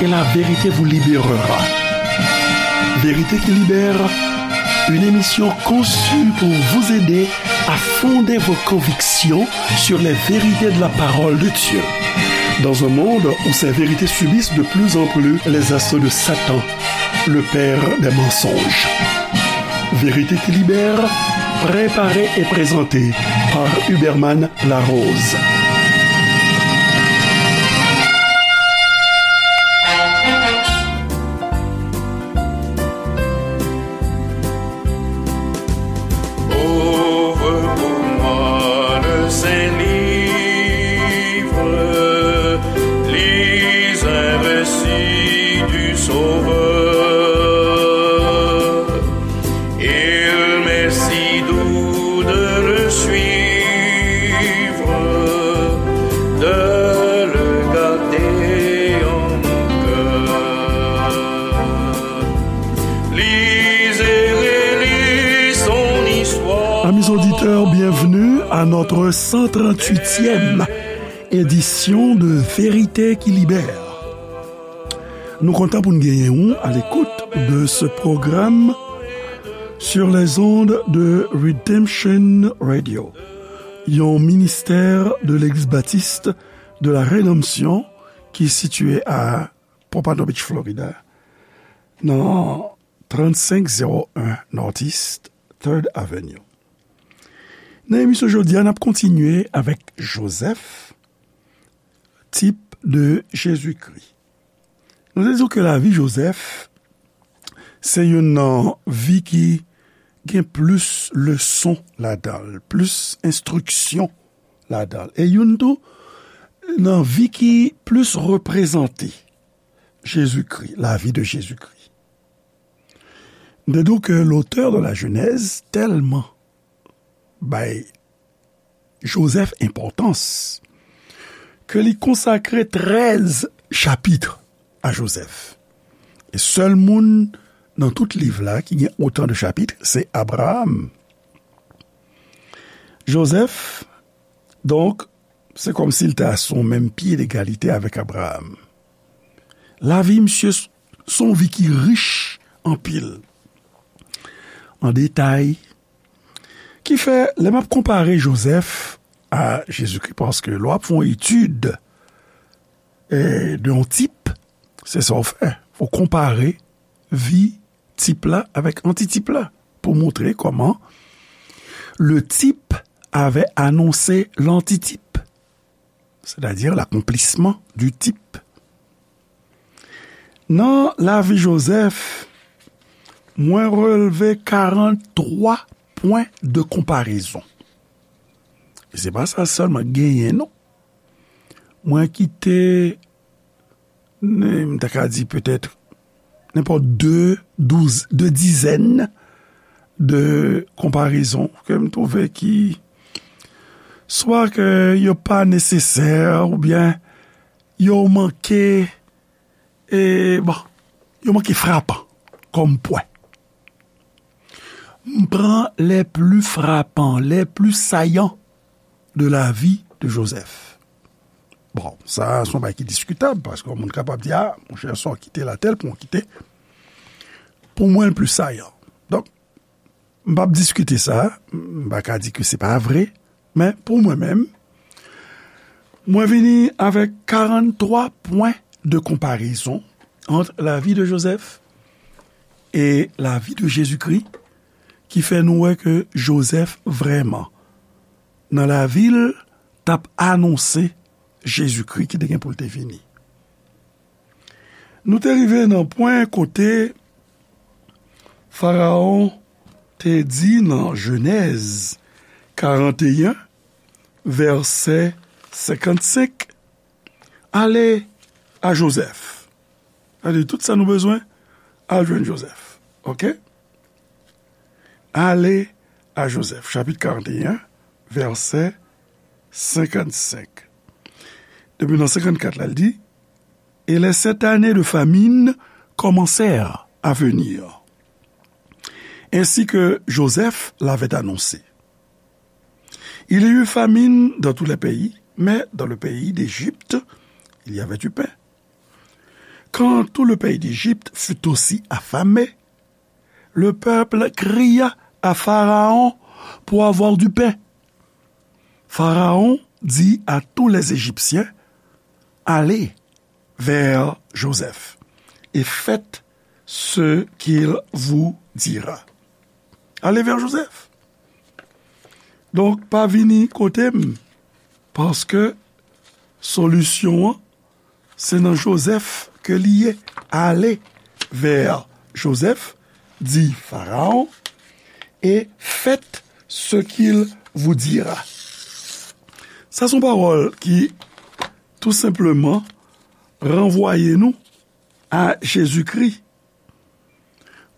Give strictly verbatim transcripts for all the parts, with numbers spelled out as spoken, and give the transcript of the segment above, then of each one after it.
Et la vérité vous libérera. Vérité qui libère, une émission conçue pour vous aider à fonder vos convictions sur les vérités de la parole de Dieu. Dans un monde où ces vérités subissent de plus en plus les assauts de Satan, le père des mensonges. Vérité qui libère, préparée et présentée par Huberman Larose. Ouvre pour moi le Saint-Livre, lis un récit du Sauveur. Il m'est si doux de le suivre, de le garder en mon cœur. Lisez, relisez son histoire. Amis auditeurs, bienvenue à notre cent trente-huitième édition de Vérité qui libère. Nou kontan pou n genyen ou à l'écoute de ce programme sur les ondes de Redemption Radio, yon ministè de Legliz Batis de la Redanmsyon ki sitiye a Pompano Beach, Florida, nan trannsenk zewo en Northeast Third Avenue. Nan emisyon jodi a, n ap kontinye avèk Jozèf, tip de Jezikri. Nou te di w ke lavi Jozèf se youn nan vi ki gen plis leson ladan l, plis enstriksyon ladan l. E youn tou nan vi ki plis reprezante Jezikri, lavi de Jezikri. M te di w ke l'auteur de la Genèse tèlman bay Jozèf enpòtans ke li konsakre trèz chapit a Jozèf. E sèl moun nan tout liv la ki gen otan de chapit, se Abraram. Jozèf, donk, se kòmsi l ta sou menm pye degalite avèk Abraram. Lavi misye s-, s on vi ki rich anpil an detay, ki fè, lè m ap konpare Jozèf a Jezikri, paske lè w ap fè yon etid, e, de yon tip, se sa w fè. Ou konpare vi tip la avèk antitip la pou montre kòman le type avait annoncé l'antitype, c'est-à-dire l'accomplissement du type. Nan lavi Jozèf, mwen relve karant twa pwen de konparezon. E se pa sa sèlman genyen, non. Mwen kite, m ta ka di petèt, nenpòt de, douz, de dizèn de konparezon ke m twouve ki swa ke yo pa nesesè oubyen yo manke, e, bon, yo manke frapan kòm pwen. M pran les plus frappants, les plus saillants de la vie de Joseph. Bon, sa, se yon bagay ki diskitab, paske yon moun kapab di, "A, monchè, sa w kite la, tèl pwen w kite, pou mwen, l pli sayan." Donk, m p ap diskite sa, m pa ka di ke se pa vre, men pou mwen menm, mwen vini avèk karant twa pwen de konparezon ant lavi de Jozèf e lavi de Jezikri, ki fè nou wè ke Jozèf vrèman, nan lavi l, t ap anonse Jezikri ki te gen pou l te vini. Nou te rive nan pwen kote Farawon te di nan Jenèz karanteyen, vèsè senkannsenk, "Ale a Jozèf." Sa vle di tout sa nou bezwen, al jwenn Jozèf. Oke? "Ale a Jozèf." Chapit karanteyen, vèsè senkannsenk. Depi nan senkannkat la, l di, "Et les sept années de famine commencèrent à venir, ainsi que Joseph l'avait annoncé. Il y eut famine dans tous les pays, mais dans le pays d'Égypte, il y avait du pain." Quand tout le pays d'Égypte fut aussi affamé, le peuple cria à Pharaon pour avoir du pain. Pharaon dit à tous les Égyptiens, allez vers Joseph et faites ce qu'il vous dira. Allez vers Joseph. Donk, pa vini kote m, paske solisyon an, se nan Jozèf ke li ye. Allez vers Joseph, dit Pharaon, et faites ce qu'il vous dira. Sa se yon pawòl ki tou senpleman ranvwaye nou a Jezikri.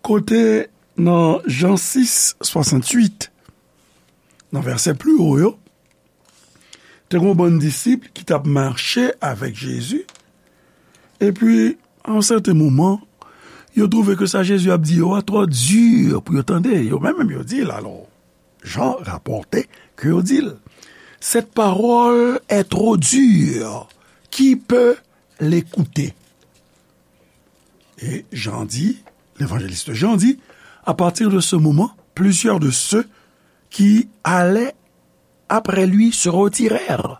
Kote nan Jan sis, swasanntuit, nan vèsè pli wo yo, te gen yon bann disip ki t ap mache avèk Jezi, epi, a yon sèten moman, yo twouve ke sa Jezi ap di yo a twò di pou yo tande. Yo menm, menm yo di l, alò, Jan rapòte ke yo di l, cette parole est trop dure, qui peut l'écouter? Et Jean dit, l'évangéliste Jean dit, à partir de ce moment, plusieurs de ceux qui allaient après lui se retirèrent.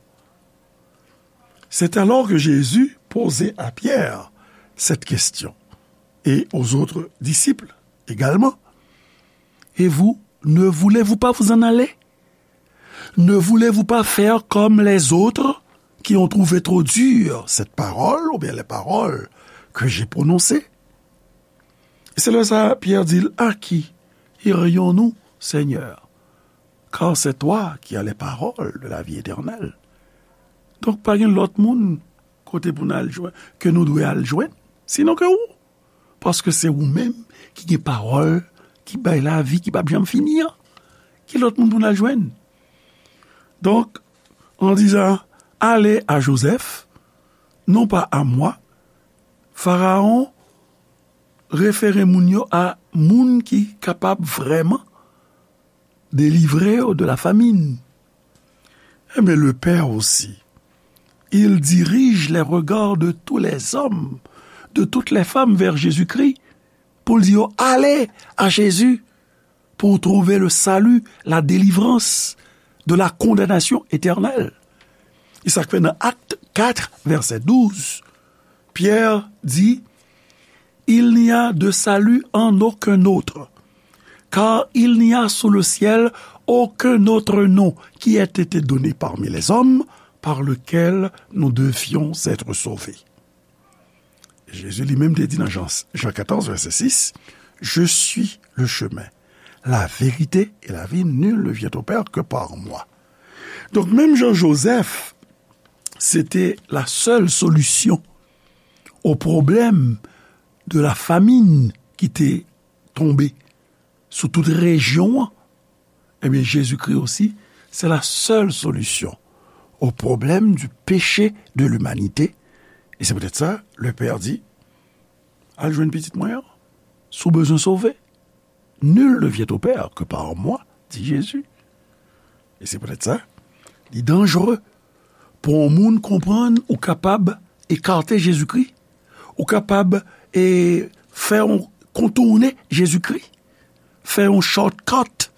C'est alors que Jésus posait à Pierre cette question, et aux autres disciples également. Et vous, ne voulez-vous pas vous en aller? Ne voulez-vous pas faire comme les autres qui ont trouvé trop dur cette parole ou bien les paroles que j'ai prononcées? Se lè sa a, Pyè di l, à qui irions-nous, Seigneur? Car c'est toi qui as les paroles de la vie éternelle. Donk, pa gen lòt moun kote pou n al jwenn, ke nou dwe al jwenn, sinon ke ou. Paske se ou menm ki gen pawòl ki bay lavi ki p ap janm fini an. Ki lòt moun pou n al jwenn? Donk, en disant, allez à Joseph, non pas à moi, Pharaon refere moun yo a moun ki kapab vrèman délivrer de la famine. Eh bien, le Père aussi, il dirige les regards de tous les hommes, de toutes les femmes vers Jésus-Christ, pour dire, allez à Jésus pour trouver le salut, la délivrance de la condamnation éternelle. Et ça fait dans Acte quatre, verset douze, Pierre dit, il n'y a de salut en aucun autre, car il n'y a sous le ciel aucun autre nom qui ait été donné parmi les hommes par lequel nous devions être sauvés. Jezi li menm te di nan Jan, Jan katòz, vèsè sis, je suis le chemin, la vérité et la vie, nul ne vient au Père que par moi. Donk, menm jan Jozèf, se te la sèl solisyon o pwoblèm de la famine ki te tonbe sou tout rejyon an, ebyen, Jezikri osi, se la sèl solisyon o pwoblèm di peche de limanite. E se poutèt sa, le Père di, al jwenn pitit mwen an, si w bezwen sove. Nul ne vient au Père que par moi, dit Jésus. E se poutèt sa, li danjere pou yon moun konprann ou kapab ekate Jezikri, ou kapab, e, fè yon kontounen Jezikri, fè yon shortcut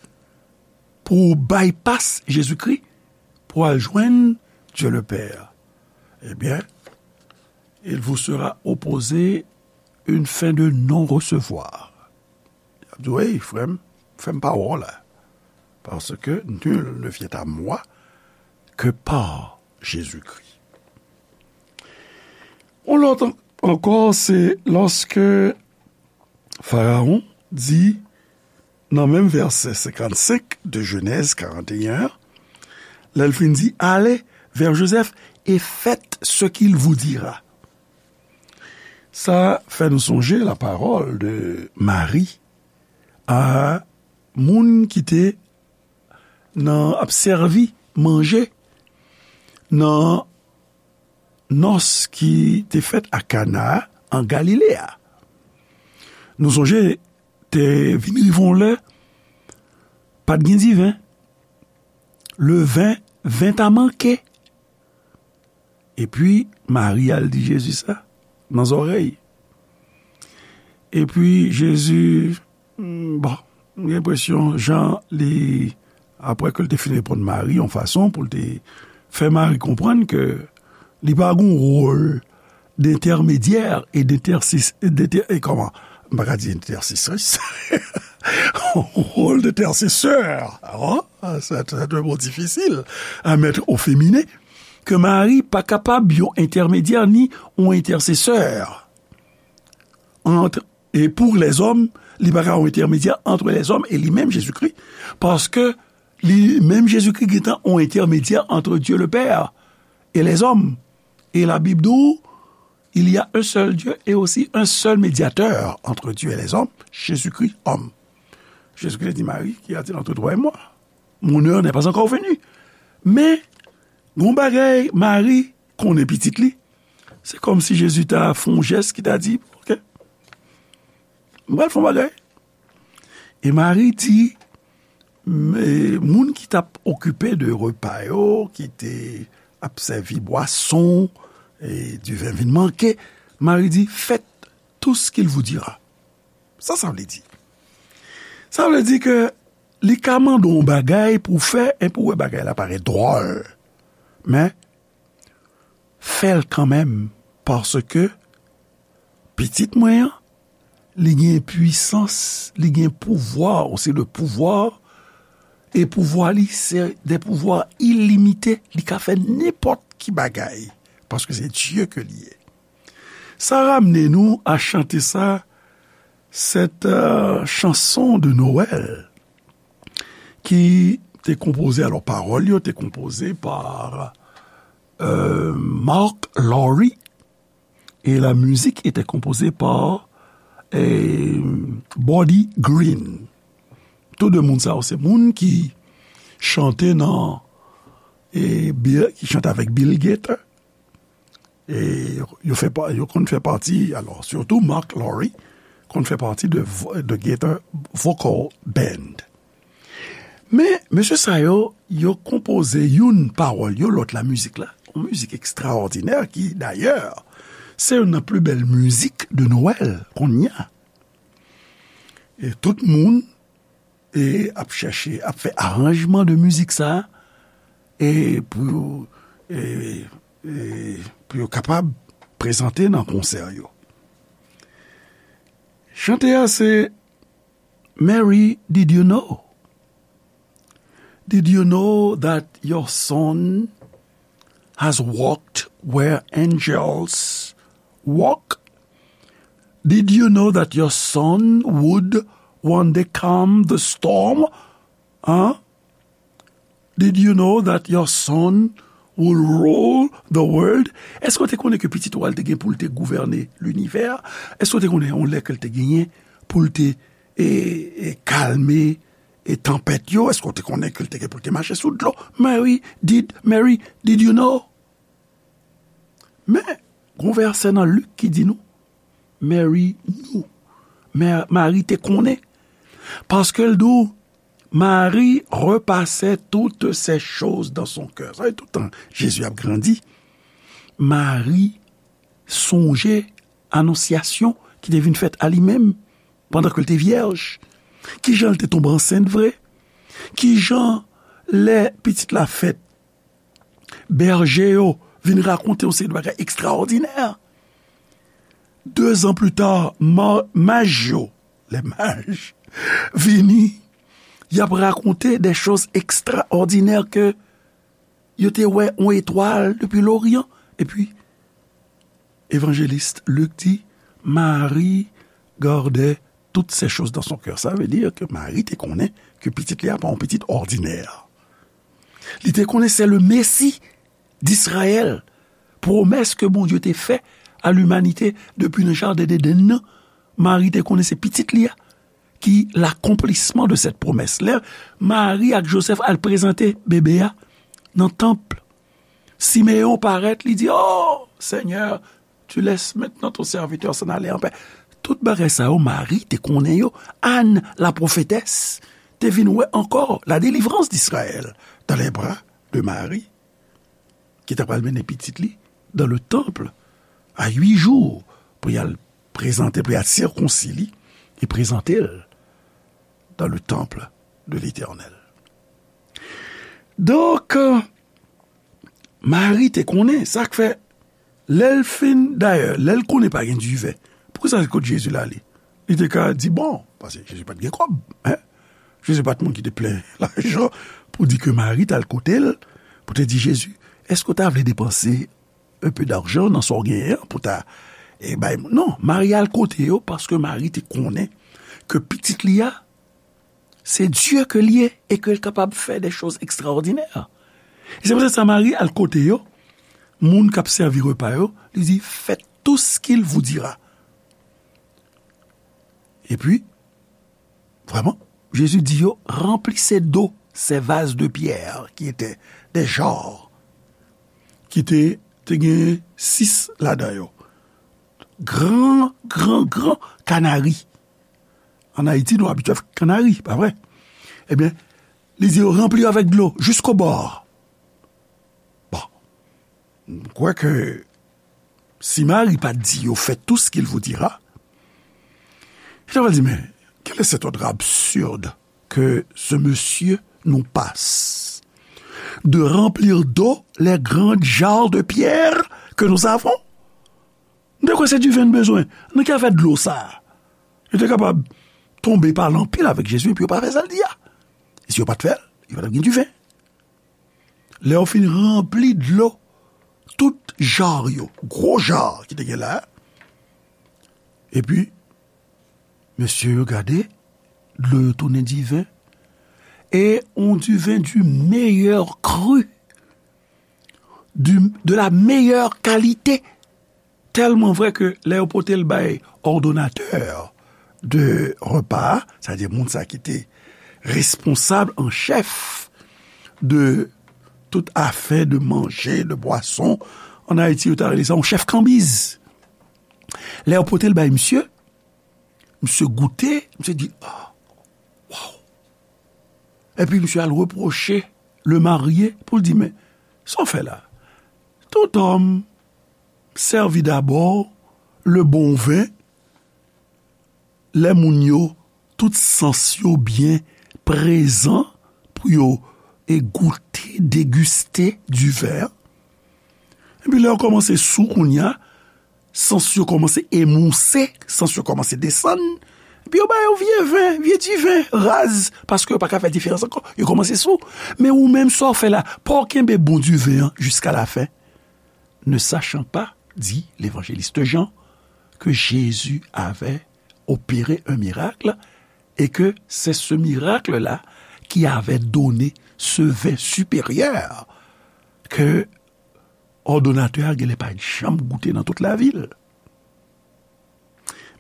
pou w bypass Jezikri, pou w al jwenn Dieu le Père. Ebyen, il vous sera opposé une fin de non-recevoir. L ap di, wi, frè m, fè m pa wè w la. Parce que nul ne vient à moi que par Jésus-Christ. Yon lòt an-, ankò, se lòske Farawon di, nan menm vèsè senkannsenk de Jenèz karanteyen an, lè l fin di, allez vers Joseph et faites ce qu'il vous dira. Sa fè nou sonje la parole de Marie a moun ki te nan ap sèvi manje nan nòs ki te fèt a Kana an Galile a. Nou sonje, te vin rive yon lè, pa t gen diven. Le vin, vin ta manke. Epi, Mari al di Jezi sa nan zòrèy. Epi Jezi, hmm, bon, m gen enpresyon, jan li, apre ke l te fin reponn Mari yon fason pou l te fè Mari konprann ke li pa gen wòl dentèmedyè e dentèsis-, dentè-, e kòman? M pa ka di entèsesris. Wòl dentèsesè. Oh, c'est un mot difficile à mettre au féminin. Ke Mari pa kapab yon entèmedyè ni yon entèsesè ant, e pou lèzòm, li pa ka yon entèmedyè ant lèzòm e li menm Jezikri, paske li menm Jezikri gentan yon entèmedyè ant Dye le Pè e lèzòm. E Labib di w, il y a un seul Dieu et aussi un seul médiateur entre Dieu et les hommes, Jésus-Christ homme. Jezikri di Mari, qu'y a-t-il entre toi et moi? Mon heure n'est pas encore venue. Men, gon bagay, Mari konnen pitit li. Se kòmsi Jezi ta fè yon jès ki ta di, oke, m pral fè yon bagay. E Mari di, m-, e, moun ki t ap okipe de repa yo, ki te ap sèvi bwason, e diven vin manke, Mari di, faites tout ce qu'il vous dira. Sa sa vle di? Sa vle di ke li ka mande w yon bagay pou w fè, e pou w wè bagay la parèt dwòl. Men, fè l kanmenm, paske pitit mwen an, li gen pwisans, li gen pouvwa, ou se le pouvwa, e pouvwa li, se de pouvwa ilimite, li ka fè nenpòt ki bagay, paske se Dye ke li ye. Sa ramne nou a chante sa, cette, euh, chanson de Noël, ki te konpoze, alò, pawòl yo te konpoze pa, euh, Mark Lowry, et la musique était composée par, eh, Buddy Green. Tou de moun sa yo, se moun ki chante nan, e, Bill, ki chante avèk Bill Gaither. E yo fè pa, yo konn fè pati, alò, sitou Mark Lowry konn fè pati de vo-, de Gaither Vocal Band. Men, mesye sa yo, yo konpoze youn pawòl yo, lòt la mizik la. Yon mizik ekstraòdinè ki, dayè, se youn nan pli bèl mizik de Nwèl kounye a. E tout moun, e, ap chèche, ap fè aranjman de mizik sa, e pou yo, e, e, pou yo kapab prezante nan konsè yo. Chante a se Mary, did you know? Did you know that your son has walked where angels walk? Did you know that your son would one day calm the storm? Huh? Did you know that your son will rule the world? Èske w te konnen ke pitit ou a l te gen pou l te gouvène linivè a? Èske w te konnen yon lè ke l te genyen pou l te, e, e, kalme, e, tanpèt yo? Èske w te konnen ke l te gen pou l te mache sou dlo? Mary, did, Mary, did you know? Men, gon vèsè nan Lik ki di nou, Mary knew. Mè-, Mari te konnen. Paske l di w, Marie repassait toutes ces choses dans son cœur. Sa vle di, tout tan Jezi ap grandi, Mari sonje anonsyasyon ki te vin fèt a li menm pandan ke l te vyèj. Kijan l te tonbe ansent vre? Kijan lè pitit la fèt, bèje yo vin rakonte yon seri de bagay ekstraòdinè. Dezan pli ta, ma-, maj yo, les mages, vini, y ap rakonte de choz ekstraòdinè ke yo te wè yon etwal depi loryan. Epi, evanjelis Lik di, Marie gardait toutes ces choses dans son cœur. Sa vle di ke Mari te konnen ke pitit li a pa yon pitit òdinè. Li te konnen se le Mesi d'Israël, pwomès ke Bondye te fè a limanite depi nan jaden Edenn nan. Mari te konnen se pitit li a ki lakonplisman de cette promesse. Lè Mari ak Joseph al prezante bebe a nan tanp, Simeyon parèt, li di, "Oh, Seigneur, tu laisses maintenant ton serviteur s'en aller en paix." Tout bagay sa yo, Mari te konnen yo. Anne, la prophétesse, te vin wè ankò la délivrance d'Israël dans les bras de Marie, ki ta pral mennen pitit li dans le temple à huit jours pou y al prezante, pou y al sikonsi li, e prezante l dans le temple de l'Éternel. Donk, Mari te konnen, sa k fè, lè l fin, dayè, lè l konnen pa gen diven, poukisa se kot Jezi l ale? Li te ka di, bon, paske Jezi pa t gen kòb, en? Jezi pa t moun ki te plen lajan pou di ke Mari t al kote l, pou te di, Jezi, èske w ta vle depanse un peu d'argent nan sa w genyen an pou ta, e, bay moun? Non, Mari al kote yo paske Mari te konnen ke pitit li a, se Dye ke l ye e ke l kapab fè de choz ekstraòdinè. E se poutèt sa Mari al kote yo, moun k ap sèvi repa yo, li di, faites tout ce qu'il vous dira. Epi, vrèman, Jezi di yo, remplissez d'eau ces vases de pierre qui étaient des jarres, ki te, te gen sis ladan yo. Gran, gran, gran kanari. Ann Ayiti, nou abitye avèk kanari, pa vre? Ebyen, li di yo, ranpli yo avèk dlo, jusqu'au bord. Bon, m kwè ke si Mari pa t di yo, faites tout ce qu'il vous dira, yo ta pral di, mais quel est cet ordre absurde que ce monsieur nous passe de remplir d'eau les grandes jarres de pierre que nous avons? M te kwè se diven n bezwen. Nan ki afè dlo sa a? Yo te kapab tonbe pale anpil avèk Jezi, epi yo pa fè sa l di a. E si yo pa t fè l, yo pa t ap gen diven. Lè yo fin ranpli dlo, tout jar yo, gwo jar ki te gen la, epi mesye yo gade, dlo yo tounen diven, e yon diven du meilleur cru, du, de la meilleure qualité. Tèlman vrè ke lè yo pote l bay òdonatè de repa a, sètadi moun sa ki te responsab an chèf de tout afè de manje, de bwason, ann Ayiti, yo ta rele sa yon chèf kanbiz. Lè yo pote l bay misye, misye goute, misye di, ah, waw. Epi misye al repwoche le marye pou l di, men, sa w fè la? Tout homme servit d'abord le bon vin, lè moun yo, tout sans yo byen prezan pou yo e goute, degiste diven. Epi lè yo kòmanse sou kounye a, sans yo kòmanse emouse, sans yo kòmanse desann, epi yo ba yo vye ven, vye diven, raz, paske yo pa ka fè diferans ankò, yo kòmanse sou. Men ou menm, sa w fè la, pa w kenbe bon diven an jiska lafen, ne sachant pas, dit l'évangéliste Jean, que Jésus avait opéré un miracle et que c'est ce miracle-là qui avait donné ce vin supérieur que òdonatè a genlè pa t janm goute nan tout lavil.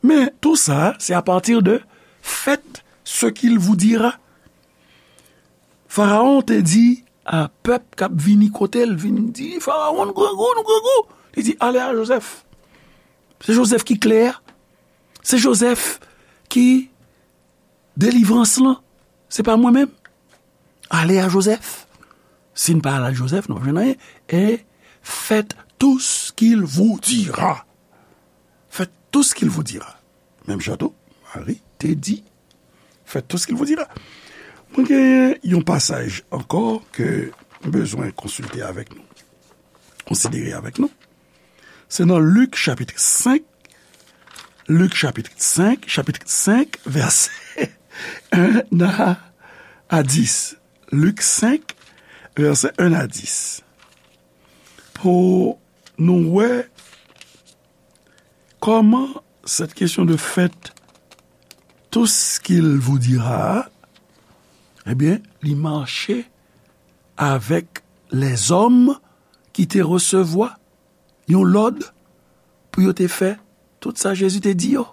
Men tou sa, se apati de faites ce qu'il vous dira. Farawon te di a pèp k ap vini kote l, vin di, Farawon, nou grangou, nou grangou. Li di, ale a Jozèf. Se Jozèf ki klè a. Se Jozèf ki delivrans lan. Se pa mwen menm. Ale a Jozèf. Si n pa al a Jozèf, nou p ap jwenn anyen. Et faites tout ce qu'il vous dira. Faites tout ce qu'il vous dira. Menm jan tou, Mari te di, faites tout ce qu'il vous dira. Mwen gen yon pasaj ankò ke m bezwen konsilte avèk nou, konsidere avèk nou. Se nan Lik chapit senk, Lik chapit senk, chapit senk, vèsè en a, a dis. Lik senk, vèsè en a dis. Pou nou wè kòman cette question de faites tout ce qu'il vous dira, ebyen, li mache avèk lèzòm ki te resevwa yon lòd pou yo te fè tout sa Jezi te di yo.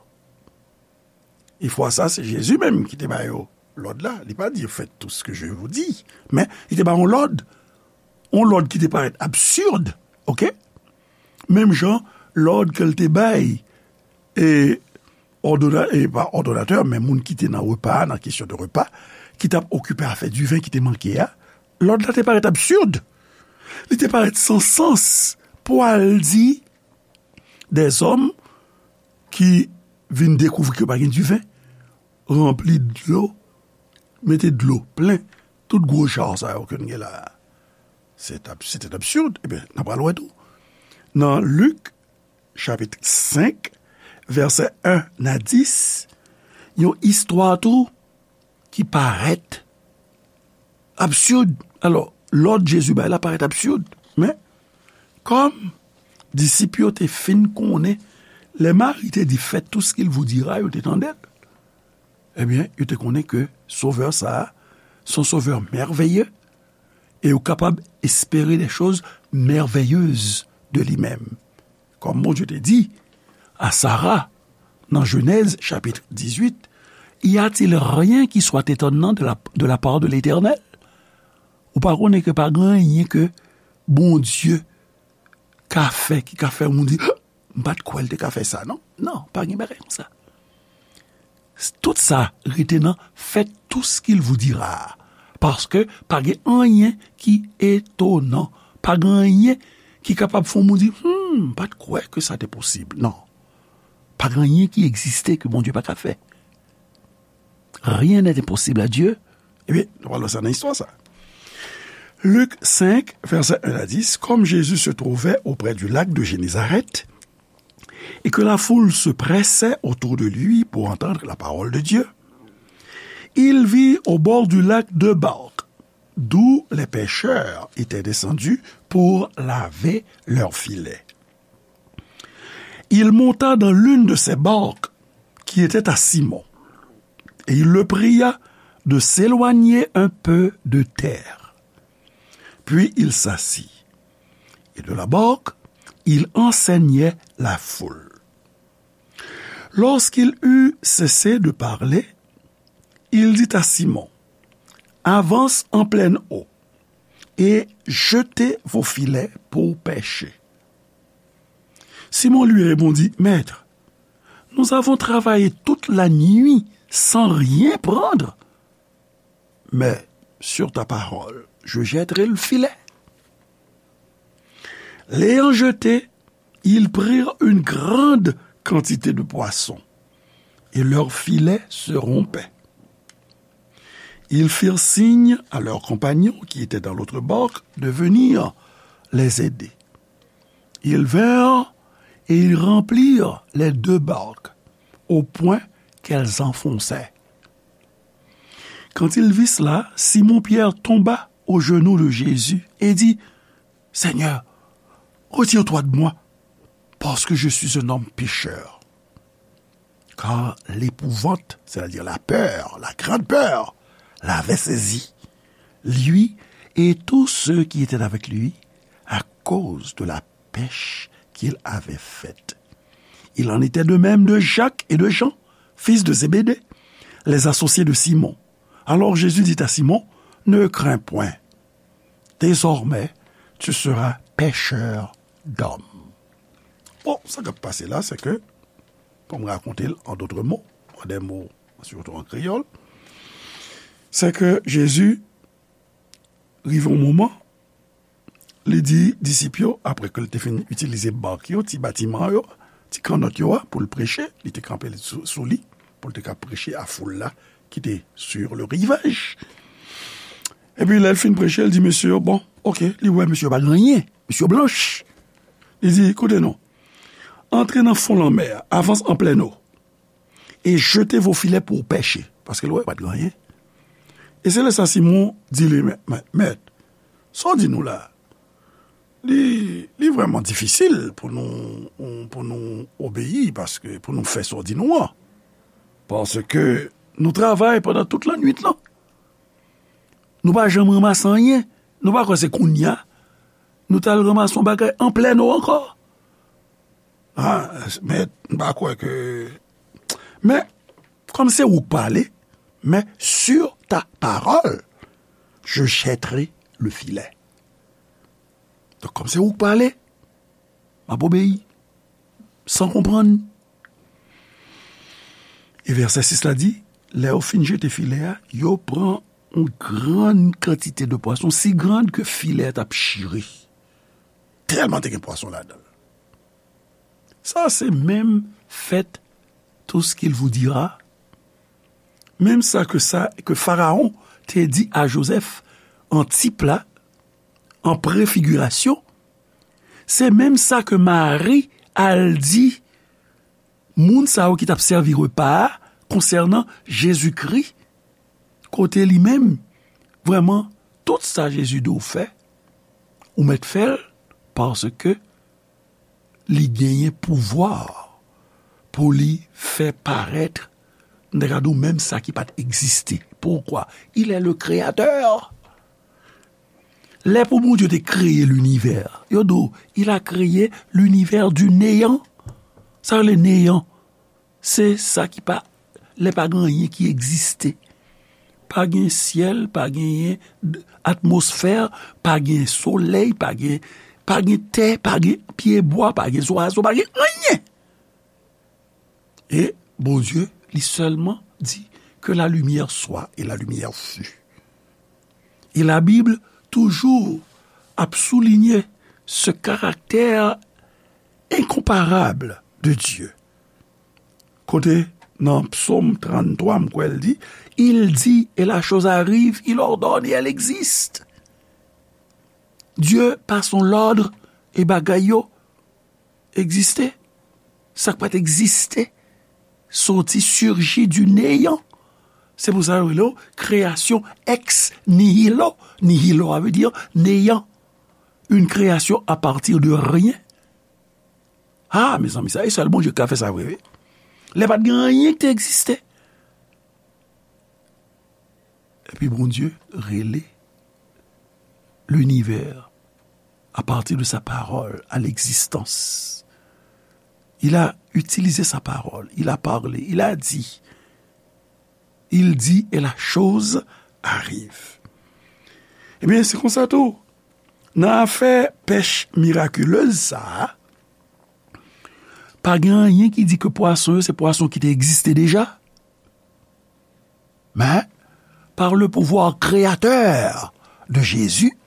E fwa sa, se Jezi menm ki te ba yo lòd la. Li pa di, faites tout ce que je vous dis. Men, li te ba yon lòd. Yon lòd ki te parèt absid, oke? Menm jan, lòd ke l te bay, e, òdona-, e pa òdonatè, men moun ki te nan repa a, nan kesyon de repa, ki t ap okipe afè diven ki te manke a, lòd la te parèt absid. Li te parèt san sans pou al di dèzòm ki vin dekouvri ke pa gen diven, ranpli dlo, mete dlo plen tout gwo jar sa yo ke n gen la a. Se t ap, se t ap absird. Ebyen, n ap pral wè tou. Nan Lik, chapit senk, vèsè en a dis, yon istwa tou ki parèt absird. Alò, lòd Jezi bay la parèt absird. Men, kòm disip yo te fin konnen, lè Mari te di, faites tout ce qu'il vous dira, yo te tande l. Ebyen, yo te konnen ke Sovè sa a, se yon Sovè mèveye, e yo kapab espere des choses merveilleuses de li menm. Kòm Bondye te di a Sara nan Jenèz chapit dizuit, y a-t-il rien qui soit étonnant de la, de la part de l'Éternel? Ou pa konnen ke pa gen anyen ke Bondye ka fè ki ka fè moun di, m pa t kwè l te ka fè sa, non? Non, pa gen bagay konsa. Tout sa rete nan faites tout ce qu'il vous dira. Paske pa gen anyen ki etonan. Pa gen anyen ki kapab fè yon moun di, hmm, m pa t kwè ke sa te posib. Non. Pa gen anyen ki egziste ke Bondye pa ka fè. Rien n'est impossible à Dieu. Ebyen, nou pral wè sa nan istwa sa. Luc cinq, versets un à dix, comme Jésus se trouvait auprès du lac de Génézareth, et que la foule se pressait autour de lui pour entendre la parole de Dieu, il vit au bord du lac deux barques, d'où les pêcheurs étaient descendus pour laver leurs filets. Il monta dans l'une de ces barques qui était à Simon, et il le pria de s'éloigner un peu de terre. Puis il s'assit, et de la barque, il enseignait la foule. Lorsqu'il eut cessé de parler, il dit à Simon, avance en pleine eau et jetez vos filets pour pêcher. Simon lui répondit, Maître, nous avons travaillé toute la nuit sans rien prendre, mais sur ta parole, je jetterai le filet. L'ayant jeté, ils prirent une grande quantité de poissons, et leur filet se rompait. Ils firent signe à leurs compagnons qui étaient dans l'autre barque de venir les aider. Ils vinrent et ils remplirent les deux barques au point qu'elles enfonçaient. Quand il vit cela, Simon-Pierre tomba aux genoux de Jésus et dit, Seigneur, retire-toi de moi, parce que je suis un homme pécheur. Car l'épouvante, c'est-à-dire la peur, la grande peur, l'avait saisi, lui et tous ceux qui étaient avec lui, à cause de la pêche qu'il avait faite. Il en était de même de Jacques et de Jean, fils de Zébédée, les associés de Simon. Alors Jésus dit à Simon, ne crains point, désormais tu seras pêcheur d'hommes. Bon, sa k ap pase la, se ke, pou m rakonte l an dòt mo, an dè mo, sitou an kreyòl, se ke Jezi rive yon moman, li di disip yo, apre ke l te fin itilize bak yo, ti batiman yo, ti kannòt yo a, pou l preche, li te kanpe sou, sou li, pou l te ka preche a foul la ki te sur le rivage. Epi lè l fin preche, l di mesye yo, bon, oke, li wè mesye yo pa gen anyen, mesye yo blanch. Li di, koute non, antre nan fon lanmè a, avanse an plèn eau, et jetez vos filets pour pêcher. Paske l wè pa t gen anyen. E se lè sa Simon di li, mèt, mèt, sa w di nou la, li, li vrèman difisil pou nou, pou nou obeyi, paske pou nou fè sa w di nou an. Paske nou travay pandan tout lannwit lan. Nou pa janm ranmase anyen. Nou pa kwè se kounye a nou t al ranmase yon bagay an plèn eau ankò. Ah, men, m pa kwè ke, men, kòm se ou k pale, mais sur ta parole, je jetterai le filet. Donk, kòm se ou k pale, m ap obeyi, san konprann. E vèsè sis la di, lè yo fin jete filè a, yo pran yon grann kantite de pwason, si grann ke filè a t ap chire. Tèlman te gen pwason ladan l. Sa se menm fèt tout ce qu'il vous dira. Menm sa ke sa ke Farawon te di a Jozèf an tip la, an prefigirasyon, se menm sa ke Mari al di moun sa yo ki t ap sèvi repa a konsènan Jezikri, kote li menm, vrèman, tout sa Jezi di w fè, ou mèt fè l, paske li genyen pouvwa pou li fè parèt, m ta ka di w, menm sa ki pa t egziste. Poukwa? Il est le créateur. Lè pou Bondye te kreye linivè, yo di w, il a créé l'univers du néant. Sa rele néant. Se sa ki pa, lè pa gen anyen ki egziste. Pa gen syèl, pa gen atmosfè, pa gen solèy, pa gen, pa gen tè, pa gen pyebwa, pa gen zwazo, pa gen anyen. E Bondye, li sèlman di que la lumière soit et la lumière fut. E Labib toujou ap soulinye ce caractère incomparable de Dieu. Kote nan Psaume trente-trois, m kwè l di, il dit et la chose arrive, il ordonne et elle existe. Dieu, par son l'ordre, e bagay yo egziste. Sa k pa t egziste soti, surgi du néant. Se pou sa yo rele w création ex nihilo. Nihilo, sa vle di néant. Une création à partir de rien. Ah, mezanmi, sa, e sèl Bondye ki ka fè sa vre, wi. Lè pa t gen anyen ki te egziste. Epi Bondye rele linivè à partir de sa parole à l'existence. Il a utilisé sa parole, il a parlé, il a dit. Il dit et la chose arrive. Ebyen, se konsa tou. Nan afè pèch mirakilez sa a, pa gen anyen ki di ke pwason yo se pwason ki te egziste deja. Men, par le pouvoir créateur de Jésus,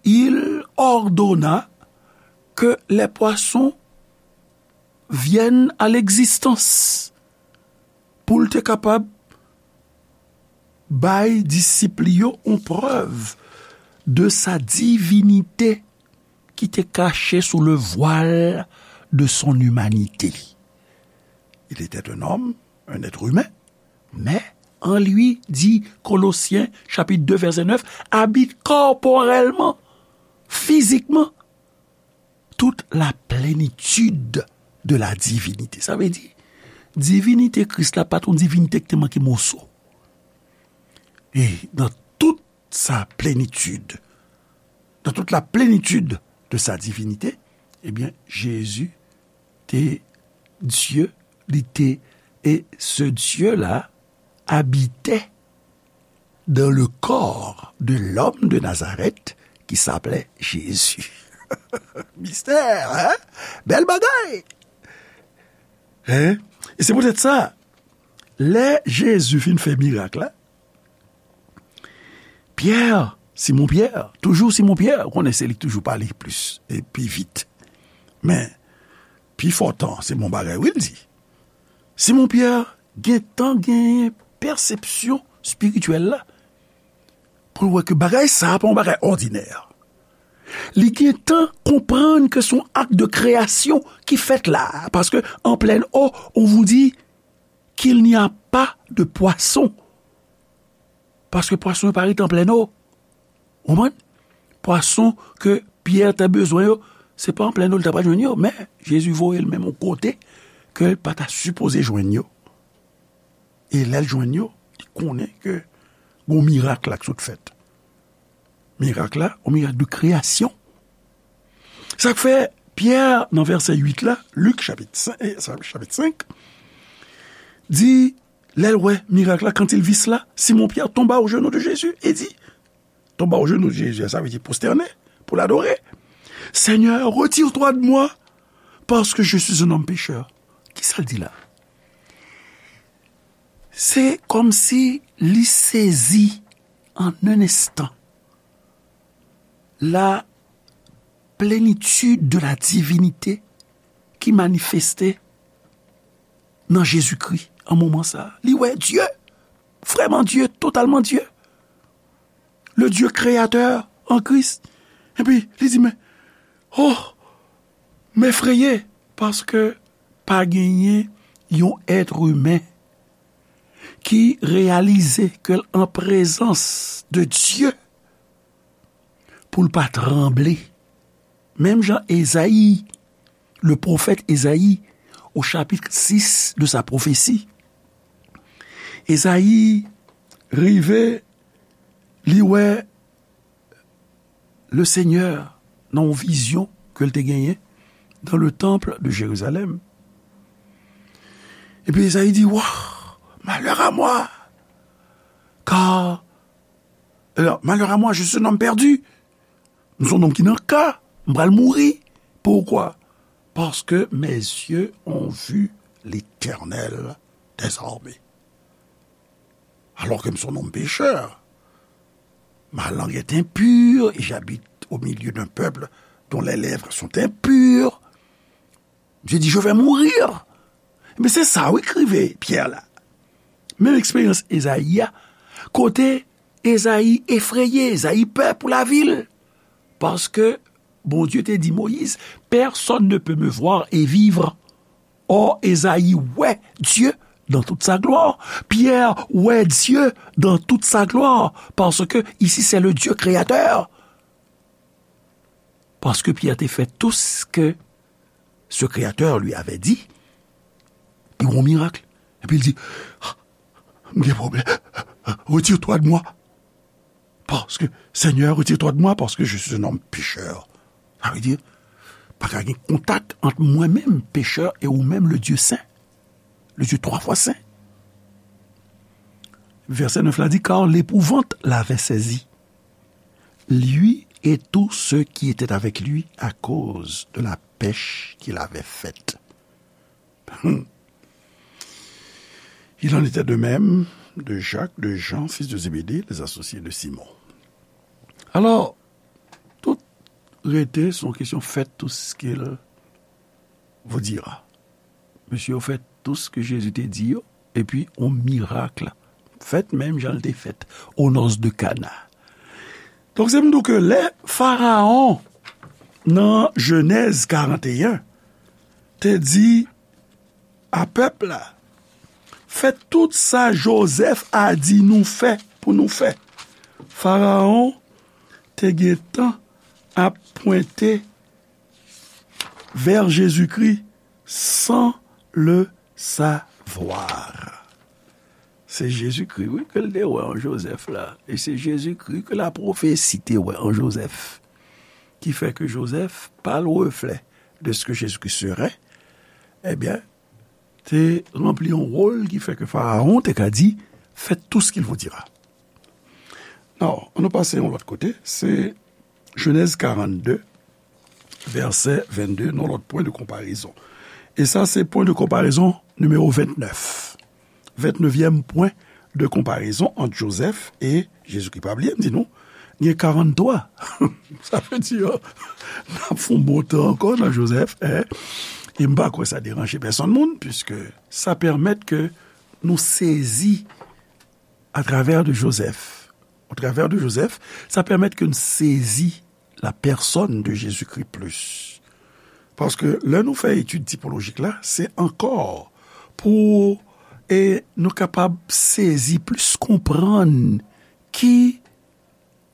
il ordonna que les poissons viennent à l'existence. Pou l te kapab bay disip li yo yon prèv de sa divinité qui était cachée sous le voile de son humanité. Il était un homme, un être humain, mais en lui, dit Colossiens chapitre deux verset neuf, habite corporellement, physiquement, toute la plénitude de la divinité. Sa vle di, divinite Kris la pa t yon divinite ki te manke moso. E dans toute sa plénitude, dans toute la plénitude de sa divinité, ebyen, Jezi te Dye, li te, e ce Dieu-là habitait dans le corps de l'homme de Nazareth qui s'appelait Jésus. Mistè, hein? Bèl bagay! Hein? E se poutèt sa, lè Jezi fin fè mirak la, Pyè, Simon Pyè, toujou Simon Pyè, ou konnen se li k toujou pale plis e pi vit. Men, pi fò tan, se bon bagay wi l di. Simon Pyè gentan genyen pèsepsyon espirityèl la pou l wè ke bagay sa a pa yon bagay òdinè. Li gentan konprann ke se yon ak de kreyasyon ki fèt la a, paske an plèn o, on vous dit qu'il n'y a pas de poisson. Paske pwason yo pa rete an plèn o. Ou konprann? Pwason ke Pyè te bezwen yo, se pa an plèn o li ta pral jwenn yo, men Jezi voye l menm yon kote ke l pa ta sipoze jwenn yo. E lè l jwenn yo, li konnen ke gon mirak la k sot fèt. Mirak la, yon mirak de kreyasyon. Sa k fè Pyè, nan vèsè uit la, Lik chapit senk, eh, chapit senk, di, lè l wè mirak la, quand il vit cela, Simon Pierre tomba aux genoux de Jésus et dit, tomba aux genoux de Jésus, sa vle di pwostène pou l adore. Seigneur, retire-toi de moi, parce que je suis un homme pécheur. Kisa l di la? Se kòmsi li sezi en un instant la plénitude de la divinité qui manifestait nan Jezikri an moman sa a. Li wè Dye, vrèman Dye, totalman Dye. Le Dieu créateur en Christ. Epi, li di, men, oh, m efreye, paske pa genyen yon èt imen ki reyalize ke l an prezans de Dye pou l pa tranble. Menm jan Ezayi, le pwofèt Ezayi, au chapitre six de sa prophétie, Ezayi rive, li wè le Senyè nan yon vizyon ke l te genyen dans le temple de Jérusalem. Epi Ezayi di, wa, malheur à moi, car, alors, malheur à moi, je suis un homme perdu. M se yon nonm ki nan ka, m pral mouri. Pourquoi? Parce que mes yeux ont vu l'Éternel des armées. Alors que m se yon nonm pechè, ma langue est impure et j'habite au milieu d'un peuple dont les lèvres sont impures. Dieu dit, je vais mourir. Men se sa, wi, k rive Pyè la. Menm eksperyans Ezayi a, kote Ezayi efreye, Ezayi pè pou lavi l. Paske Bondye te di Moyiz, personne ne peut me voir et vivre. Or, Ezayi wè Dye dans toute sa gloire. Pierre wè Dye dans toute sa gloire. Parce que ici, c'est le Dieu créateur. Parce que Pierre te fait tout ce que ce Créateur lui avait dit. Li wè yon mirak. Epi l di, ah, m gen pwoblèm. Retire-toi de moi. Parce que, Seigneur, retire-toi de moi, parce que je suis un homme pécheur. Sa vle di, pa ka gen kontak ant mwen menm, pechè, e ou menm, le Dieu saint, le Dieu trois fois saint. Vèsè nèf la di, car l'épouvante l'avait saisi, lui et tous ceux qui étaient avec lui, à cause de la pêche qu'il avait faite. Il en était de même de Jacques, de Jean, fils de Zébédée, les associés de Simon. Alors, tout rete, c'est une question, faites tout ce qu'il vous dira. Mesye yo fè tout ce que Jésus te di yo, epi yon mirak fèt menm jan l te fèt aux noces de Cana. Donk, se pou m di w ke lè Farawon, nan Jenèz karant e en, te di a pèp la, fè tout sa Jozèf a di nou fè pou nou fè. Farawon te gentan ap pwente vers Jésus-Christ sans le savoir. Se Jezikri, wi, ke l te wè an Jozèf la. E se Jezikri ke lapwofesi te wè an Jozèf. Ki fè ke Jozèf, par le reflet de ce que Jésus-Christ serait, ebyen, te ranpli yon wòl ki fè ke Farawon te ka di, faites tout ce qu'il vous dira. Non, ann nou pase yon lòt kote, se Jenèz karannde, vèsè vennde, yon lòt pwen de konparezon. E sa, se pwen de konparezon nimewo vennèf. Vennèvyèm pwen de konparezon ant Jozèf e Jezikri. Pa bliye, m di nou, gen karannde twa. Sa vle di, n ap fè yon bon tan ankò nan Jozèf, en. E m pa kwè sa deranje pèsonn moun, piske sa pèmèt ke nou sezi à travers de Joseph. Au travers de Joseph, sa pèmèt ke n sezi la pèsòn de Jezikri plis. Paske lè nou fè etid tipolojik la, se ankò pou, e, nou kapab sezi plis, konprann ki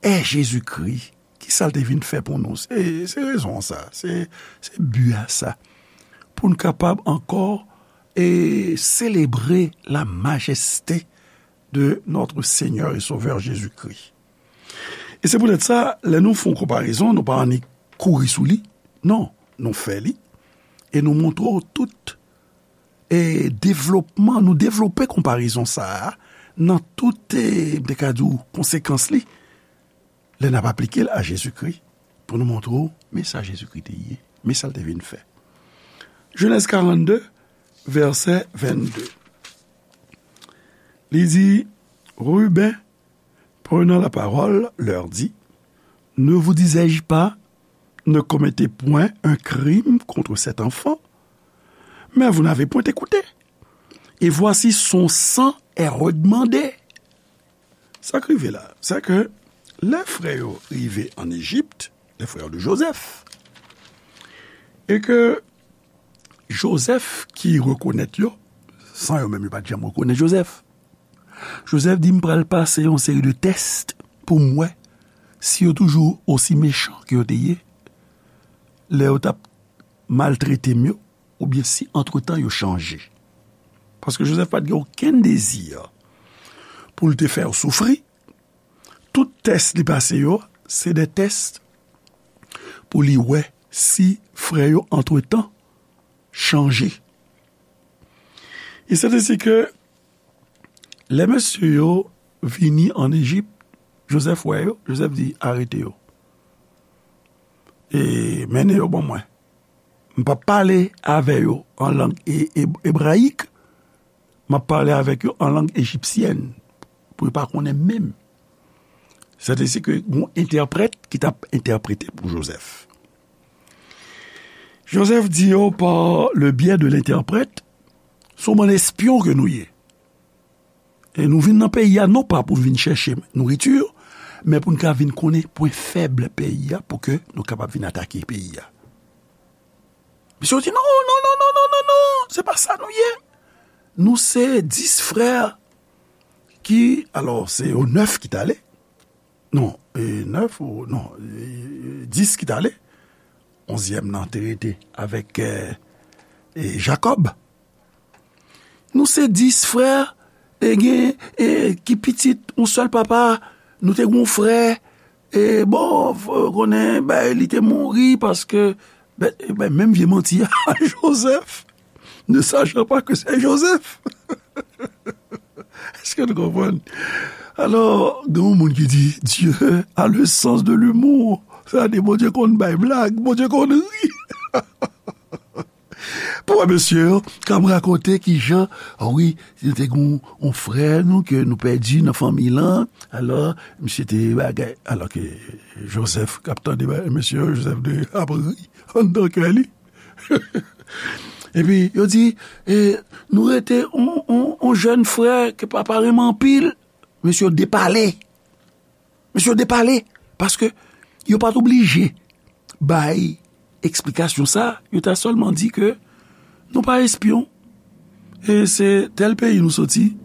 è Jezikri, ki sa l te vin fè pou nou. Se, se rezon an sa, se, se bi a sa. Pou n kapab ankò, e, selebre la majeste de notre Seigneur et Sauveur Jésus-Christ. E se poutèt sa, lè nou fè yon konparezon, nou pa annik kouri sou li. Non, nou fè li. E nou montre w tout, e devlopman, nou devlope konparezon sa a nan tout, e, m te ka di w, konsekans li. Lè n ap aplike l a Jezikri, pou nou montre w, men sa Jezikri te ye, men sa l te vin fè. Jenèz karannde, vèsè vennde. Li di, Ruben, prenant la parole, leur dit, ne vous disais-je pas, ne commettez point un crime contre cet enfant? Mais vous n'avez point écouté. Et voici son sang est redemandé. Sa k rive la, c'est que lè frè yo rive an Ejip, les frères de Joseph, e ke Joseph ki rekonèt yo, san yo menm yo pa t janm rekonèt Joseph. Joseph di, "M pral pase yon seri de tès pou m wè si yo toujou osi mechan ke yo te ye lè yo t ap maltrete m yo, oubyen si antretan yo chanje." Paske Joseph pa t gen okenn dezi pou l te fè yo soufri. Tout tès li pase yo, se de tès pou li wè si frè yo antretan chanje. E se te si ke lè mesye yo vini an Ejip, Joseph wè yo, Joseph di, "Arete yo. E mennen yo ban mwen. M p ap pale avè yo an lang e-, e-, ebrayik, m ap pale avèk yo an lang ejipsyèn, pou yo pa konnen menm." Se te si ke yon entèprèt ki t ap entèprete pou Joseph. Joseph di yo, "Par le biais de l'interprète, se yon bann espyon ke nou ye. E nou vin nan peyi a non pa pou vin chèche nouriti, men pou n ka vin konnen pwen fèb peyi a, pou ke nou kapab vin atake peyi a." Misye di, "Non, non, non, non, non, non, non, se pa sa nou ye. Nou se dis frè ki," alò, se yo nèf ki t ale. Non, e, nèf ou, non, e, dis ki t ale. Onzyèm nan te rete avèk, e, e, Jakòb. "Nou se dis frè, e gen, e, ki pitit yon sèl papa, nou te gen yon frè, e bon, f-, konnen, ben, li te mouri paske," ben, ben, menm vye manti a, Joseph, ne sachant pas que c'est Joseph. Èske nou konprann? Alò, gen yon moun ki di, "Dieu a le sens de l'humour." Sa di, Bondye konn bay blag, Bondye konn ri. Pou wè mesye yo k ap rakonte kijan, a wi, nou te gen yon, yon frè nou ke nou pèdi nan fanmi lan. Alò, misye te bagay. Alò ke Joseph k ap tande bagay, mesye yo, Joseph te ap ri anndan kè li. Epi, yo di, e, "Nou rete on, on, on jèn frè ke papa renmen anpil." Mesye yo depale. Mesye yo depale. Paske yo pa t oblije bay eksplikasyon sa. Yo ta sèlman di ke nou pa espyon. E se tèl peyi nou soti.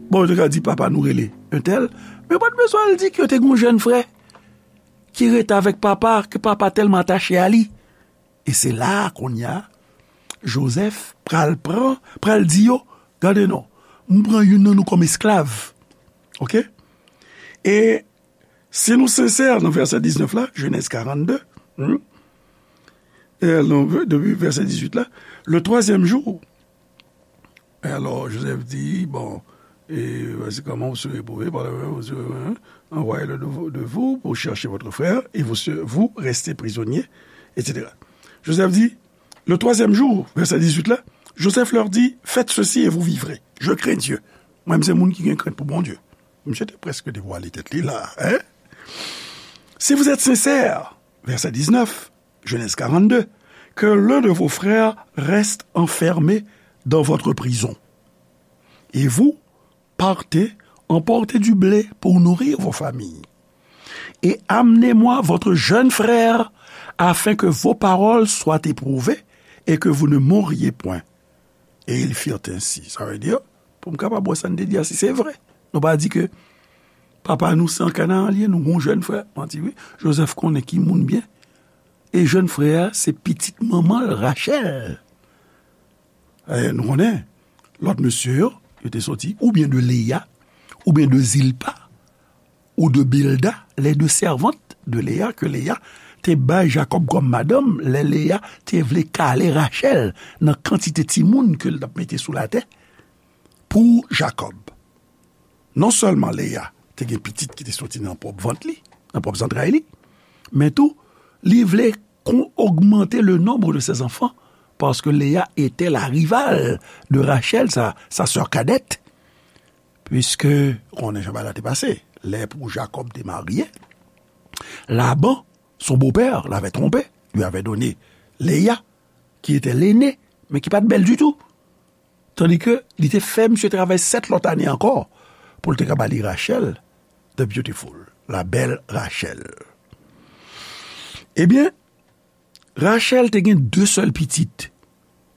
Bon, yo te ka di papa nou rele entèl. Men yo pa t bezwen al di ke yo te gen yon jèn frè ki rete avèk papa, ke papa tèlman atache a li. E se la a, kounye a, Joseph pral pran, pral di yo, "Gade non, m pran youn nan nou kòm esklav." Oke? E si nou sensè nan vèsè diznèf la, Genèse quarante-deux, hmm, e non, depi vèsè dizuit la, le troisième jour, alors, Joseph dit, bon, et voici comment vous serez éprouvés par le, vous serez, hein, envoyé le de, de vous pour chercher votre frère, et vous, se- vous restez prisonniers, et cetera. Joseph dit, le troisième jour, vèsè dizuit la, Joseph leur dit, faites ceci et vous vivrez. Je crains Dieu. Mwen, m se moun ki gen krent pou Bondye. Misye te prèske devwale tèt li la, hein? Si vous êtes sincères, vèsè diznèf, Genèse quarante-deux, que l'un de vos frères reste enfermé dans votre prison. Et vous, partez, emportez du blé pour nourrir vos familles. Et amenez-moi votre jeune frère, afin que vos paroles soient éprouvées et que vous ne mouriez point. Et ils firent ainsi. Sa vle di, pou m kapab wè sa n te di a, si se vre. Nou pa di ke papa nou se an Kanaran li ye, nou gon jèn frè. Manti wi. Joseph konnen ki moun byen. E jèn frè a, se pitit manman l, Rachèl. E nou konnen, lòt mesye yo, yo te soti oubyen de Leya, oubyen de Zilpa, ou de Bilda, les deux servantes de Léa, ke Leya te bay Jakòb kòm madanm, lè Leya te vle kale Rachèl nan kantite timoun ke l t ap mete sou latè pou Jakòb. Non sèlman Leya te gen pitit ki te soti nan pwòp vant li, nan pwòp zantray li, men tou, li vle kon- augmenter le nombre de ses enfants, parce que Léa était la rivale de Rachel, sa, sa sœur cadette, puisque, ou konnen jan bagay la te pase, lè pou Jakòb te marye, Laban, son beau-père, l'avait trompé, lui avait donné Léa, qui était l'aînée, mais qui pas belle du tout. Tandi ke li te fè misye travay sèt lòt ane ankò pou l te ka ba li Rachel, the beautiful, la belle Rachel. Ebyen, Rachel te gen de sèl pitit.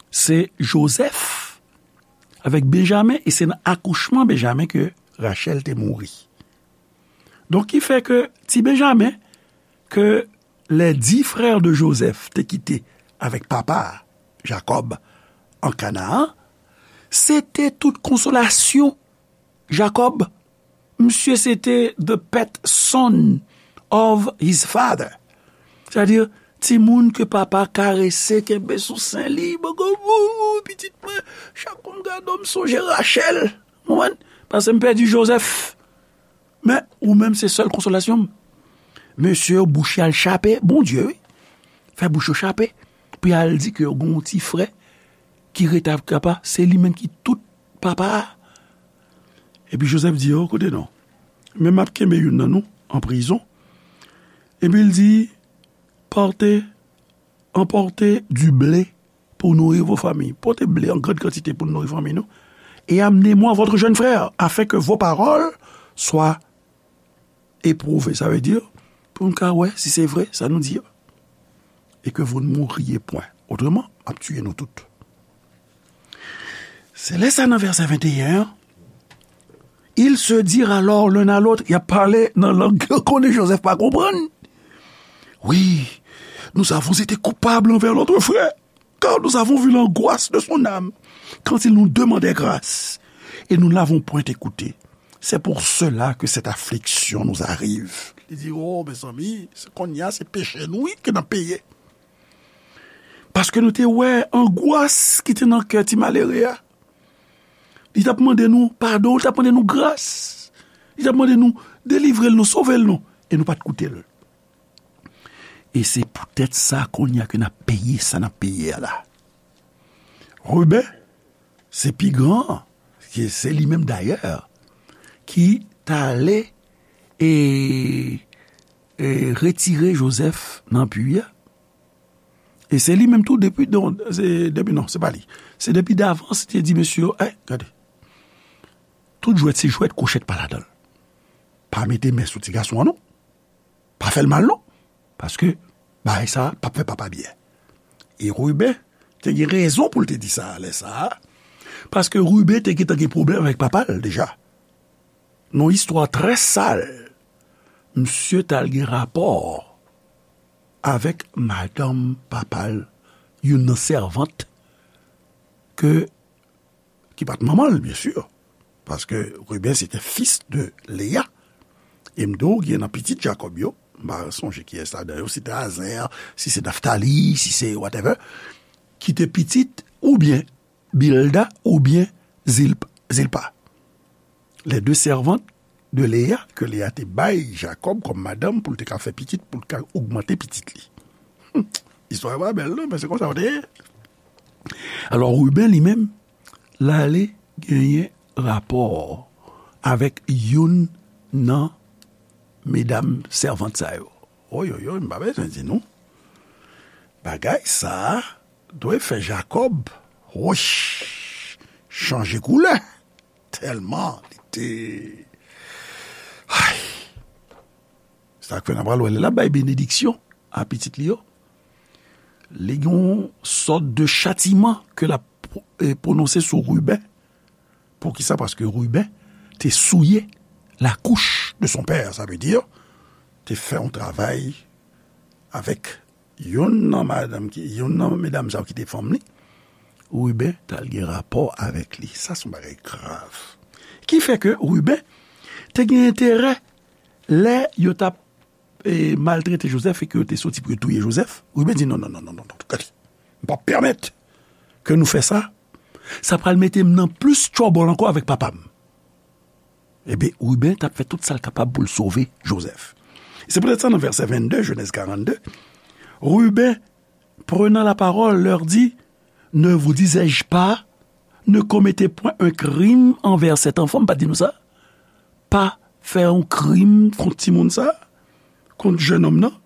Se Joseph avèk Benjamin, e se nan akouchman Benjamin ke Rachel te mouri. Donk, ki fè ke ti Benjamin, ke les dix frères de Joseph te kite avèk papa a, Jacob, an Kanaan, se te tout konsolasyon Jacob. Misye se te the pet son of his father. Sètadi, timoun ke papa karese, kenbe sou sen li, bòkò, wou, wou, pitit mwen, chak kou m gade w, m sonje Rachel. Ou konprann? Paske m pèdi Joseph. Men, ou menm, se sèl konsolasyon m. Mesye yo, bouch yo al chape, Bondye, wi. Fè bouch yo chape. Pou y al di ke yo gen yon ti frè ki rete avèk papa, se li menm ki tout papa a. Epi Joseph di yo, koute non. Men m ap kenbe youn nan nou an prizon. Epi l di, portez, emportez du blé pour nourrir vos familles. Pote ble an grand kantite pou nouri fanmi nou. Et amenez-moi votre jeune frère, afin que vos paroles soient éprouvées. Sa vle di, pou n ka wè si se vre, sa nou di a. Et que vous ne mouriez point. Autrement, m ap tiye nou tout. Se lè sa nan vèsè venteyen an, ils se dirent alors l'un à l'autre, y ap pale nan lang ke konnen Joseph pa konprann. Oui, nous avons été coupables envers notre frère, car nous avons vu l'angoisse de son âme quand il nous demandait grâce, et nous ne l'avons point écouté. C'est pour cela que cette affliction nous arrive. Li di, oh, mezanmi, se kounye a, se peche nou, wi, ke n ap peye. Paske nou te wè angwas ki te nan kè ti malere a. Li t ap mande nou padon, li t ap mande nou gras. Li t ap mande nou delivre l, nou sove l, non. E nou pa t koute l. E se poutèt sa, kounye a ke n ap peye sa n ap peye a la. Ruben, se pi gran an, se, se li menm dayè, ki t ale e, e retire Joseph nan pui a. E se li menm tou depi, non, se, depi, non, se pa li. Se depi davans, li te di mesye yo, eh, gade. Tout jwèt se jwèt, kwochèt pa ladan l. Pa mete men sou ti gason an, non. Pa fè l mal, non. Paske bagay sa a p ap fè papa byen. E Ruben te gen rezon pou l te di sa a lè sa a. Paske Ruben te gentan gen pwoblèm avèk papa l deja. Nan yon istwa trè sal, misye t al gen rapò avèk madanm papa l, youn nan sèvant ke, ki pa t manman l, byen si. Paske Ruben se te fis de Leya. E m di w, gen nan pitit Jakòb yo, m pa sonje kiyès ladan yo, si se te Azer, si se Naftali, si se whatever, ki te pitit oubyen Bilda oubyen Zilp-, Zilpa. Les deux servantes de Léa, ke Leya te bay Jakòb kòm madanm pou l te ka fè pitit, pou l ka ogmante pitit li. Hmm. Istwa yo pa bèl, non, men se konsa yo te ye. Alò, Ruben li menm, l ale genyen rapò avèk youn nan medam sèvant sa yo. Oyoyoy, m pa bezwen di nou. Bagay sa a dwe fè Jakòb, woch, chanje koulè. Tèlman li te, ay. Sa k fè n ap pral wè lè l ap bay benediksyon a pitit li yo. Li gen yon sòt de chatiman ke l ap, eh, pwononse sou Ruben. Poukisa? Paske Ruben te souye la couche de son père, sa vle di, te fè yon travay avèk youn nan madanm ki, youn nan medam sa yo ki te fanm li. Ruben t al gen rapò avèk li. Sa se yon bagay grav. Ki fè ke Ruben te gen enterè lè yo t ap, e, maltrete Joseph e ke yo te soti pou yo touye Joseph. Ruben di, non, non, non, non, non, non, gade. M p ap pèmèt ke nou fè sa. Sa pral mete m nan plis trouble ankò avèk papa m. Ebyen, Ruben t ap fè tout sa l kapab pou l sove Joseph. Se poutèt sa, nan vèsè vennde, Genèse quarante-deux, Ruben, prenant la parole, leur dit, ne vous disais-je pas, ne commettez point un crime envers cet enfant, m pa t di nou sa? Pa fè yon krim kont timoun sa, kont jennonm nan.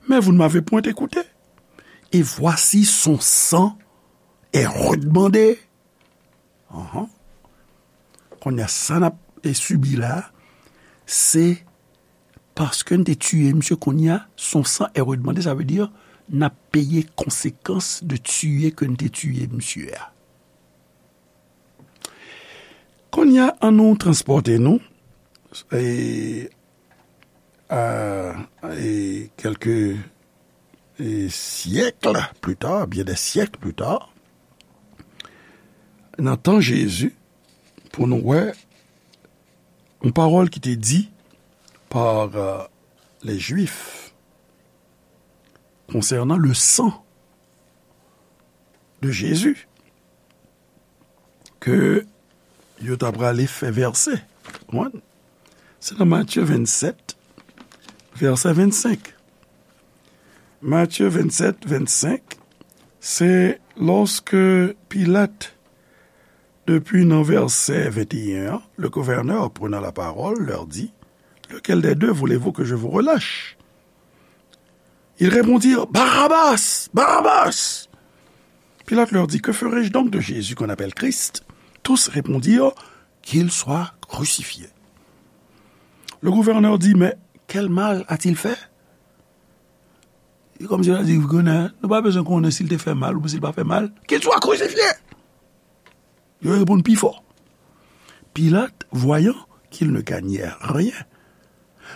Mais vous ne m'avez point écouté. Et voici son sang est redemandé. Anhan. Kounye a, sa n ap, e, sibi la, se paske n te tiye misye, kounye a, son san è redemande, sa vle di, n ap peye konsekans de tiye ke n te tiye misye a. Kounye a, ann nou transpòte nou, e, a, e, kèlke, e, syèk pli ta, byen dè syèk pli ta, nan tan Jezi, pou nou wè yon pawòl ki te di pa, euh, les Juifs konsènan le san de Jezi ke yo ta prale fè vèse. Konprann? Se nan Matye vennsèt, vèse vennsenk. Matye vennsèt, vennsenk, se lòske Pilat, depi nan vèse venteyen an, le gouverneur, prenant la parole, leur dit, lequel des deux voulez-vous que je vous relâche? Ils répondirent, Barabbas! Barabbas! Pilate leur dit, que ferai-je donc de Jésus qu'on appelle Christ? Tous répondirent, Qu'il soit crucifié. Le gouverneur dit, Mais quel mal a-t-il fait? E kòmsi l di, Gouvènè, nou pa bezwen konnen si l te fè mal oubyen si l pa fè mal. Qu'il soit crucifié! Yo reponn pi fò. Pilate, voyant qu'il ne gagnait rien,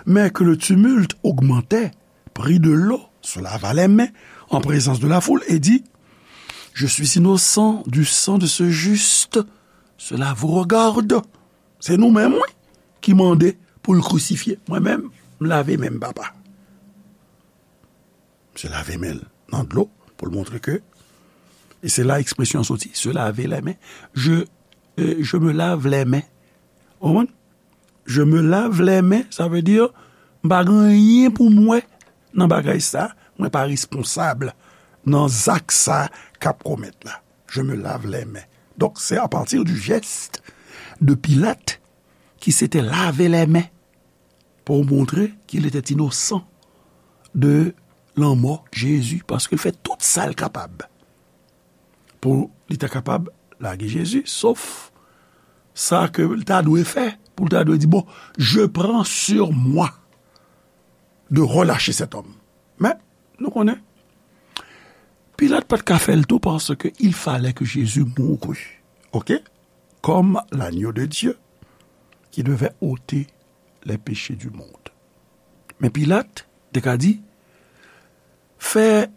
mais que le tumulte augmentait, prit de l'eau, se lava les mains en présence de la foule et dit, Je suis innocent du sang de ce juste, cela vous regarde. Se nou menm, wi, ki mande pou l krisifye. Mwen menm, m lave men m, papa. Misye lave men l nan dlo pou l montre ke, e se la ekspresyon an soti, se lave les mains. Je, euh, je me lave les mains. Ou konprann? Je me lave les mains, sa vle di, m pa gen anyen pou m wè nan bagay sa, mwen pa responsab nan zak sa k ap komèt la. Je me lave les mains. Donc, c'est à partir du geste de Pilate qui s'était lavé les mains pour montrer qu'il était innocent de lanmò Jezi, paske l fè tout sa l kapab pou li ta kapab lage Jezi, sof sa ke l ta dwe fè, pou l ta dwe di, Bon, je prends sur moi de relâcher cet homme. Men, nou konnen, Pilat pa t ka fè l tou, paske il fallait que Jésus mourût, ok, comme l'agneau de Dieu qui devait ôter les péchés du monde. Men Pilat te ka di, fè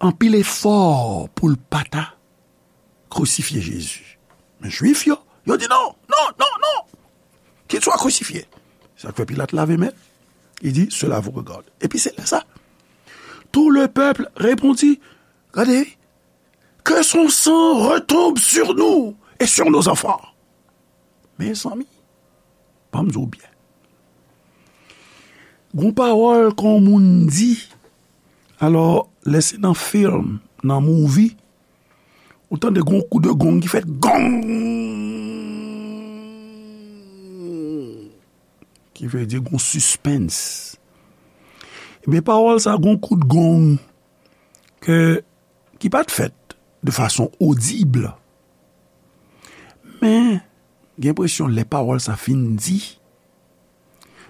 anpil efò pou l pa ta krisifye Jezi. Men Jwif yo, yo di, Non, non, non, non! Qu'il soit crucifié. Sa k fè Pilat lave men l. Il dit, Cela vous regarde. Epi se lè sa, tout le peuple répondit, Gade, que son sang retombe sur nous et sur nos enfants. Mezanmi, ban m di w byen. Gon pawòl ke yon moun di, alò, lè se nan fim, nan movie, ou tande gon kou de gong ki fèt, gong! Ki vle di gon sispens. Ebyen, pawòl sa, gon kout gong ke, ki pa t fèt de fason odib. Men, gen enpresyon lè pawòl sa fin di,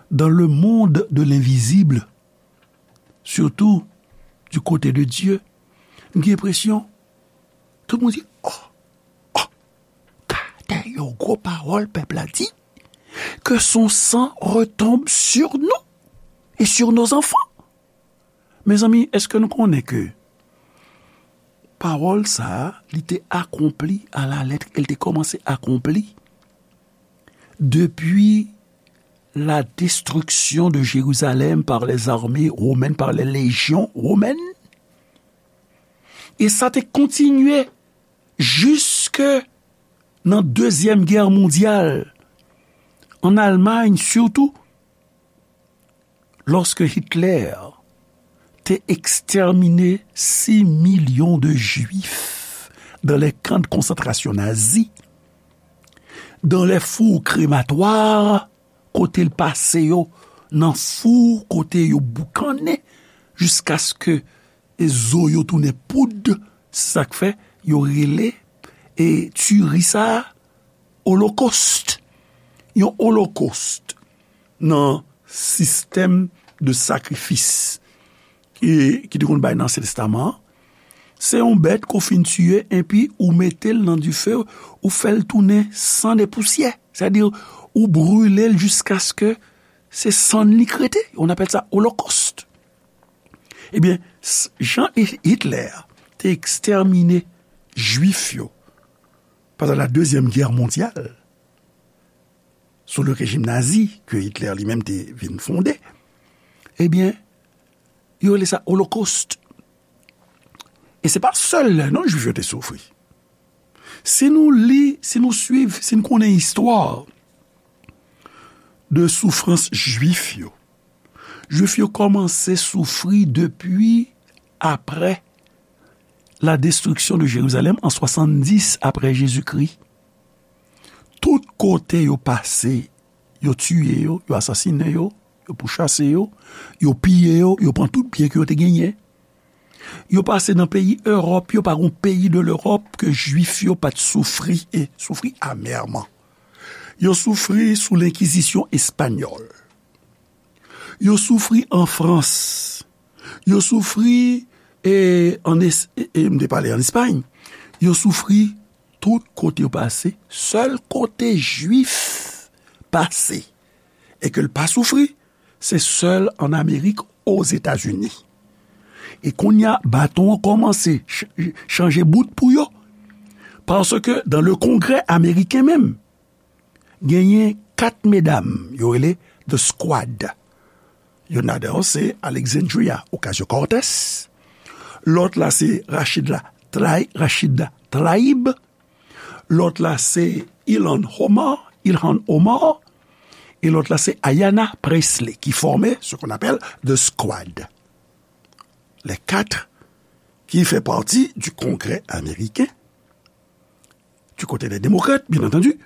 dans le monde de l'invisible, surtout du côté de Dieu, m gen enpresyon, tout moun di, Oh, oh, gade yon gwo pawòl pèp la di, que son sang retombe sur nous et sur nos enfants. Mezanmi, èske nou konnen ke pawòl sa a, li te akonpli a la lèt, e l te kòmanse akonpli depi la destruction de Jérusalem par les armées romaines, par les légions romaines? E sa te kontinye jiske nan Dezyèm Gè Mondyal, an Almay sitou, lòske Hitler te ekstèmine sis milyon de Jwif dans les camps de concentration nazis, dans les fours crématoires, kote l pase yo nan fou, kote yo boukannen, jiskaske e zo yo tounen poud, se sa k fè yo rele e tiri sa a olokost. Yon olokost nan sistèm de sakrifis ki, ki te konn bay nan Ansyen Testaman an, se yon bèt ke w fin tiye, epi ou mete l nan dife, ou fè l tounen sann e pousyè. Sètadi, ou brile l jiskaske se sann li k rete. On appelle ça holocauste. Ebyen, s-, jan Hi-, Hitler te ekstèmine Jwif yo pandan la Dezyèm Gè Mondyal, sou le rejim nazi ke Hitler li menm te vin fonde, ebyen, yo rele sa olokost. E se pa sèl lè non Jwif yo te soufri. Si nou li, si nou swiv, si nou konnen istwa de soufrans Jwif yo, Jwif yo kòmanse soufri depi apre la destruction de Jérusalem an swasanndis apre Jezikri. Tout kote yo pase, yo tiye yo, yo asasinen yo, yo pouchase yo, yo piye yo, yo pran tout byen ke yo te genyen. Yo pase nan peyi Ewòp yo, pa gon peyi de Lewòp ke Jwif yo pa t soufri e soufri amèman. Yo soufri sou lenkizisyon espanyòl. Yo soufri an Frans. Yo soufri, e, an Es-, e, e, m te pale an Espay. Yo soufri tout kote yo pase. Sèl kote Jwif pase e ke l pa soufri, se sèl an Amerik, Ozetazini. E kounye a, baton an kòmanse ch-, chanje bout pou yo. Paske dans le Congrès américain menm, genyen kat medam, yo rele The Squad. Youn ladan yo se Alexandria Ocasio-Cortez. Lòt la se Rashida Tlaib, Rashida Tlaib. Lòt la se Ilhan Omar, Ilhan Omar. E lòt la se Ayanna Pressley, ki fòme ce qu'on appelle The Squad. Les quatre qui fait partie du Congrès américain, du côté des démocrates, bien entendu.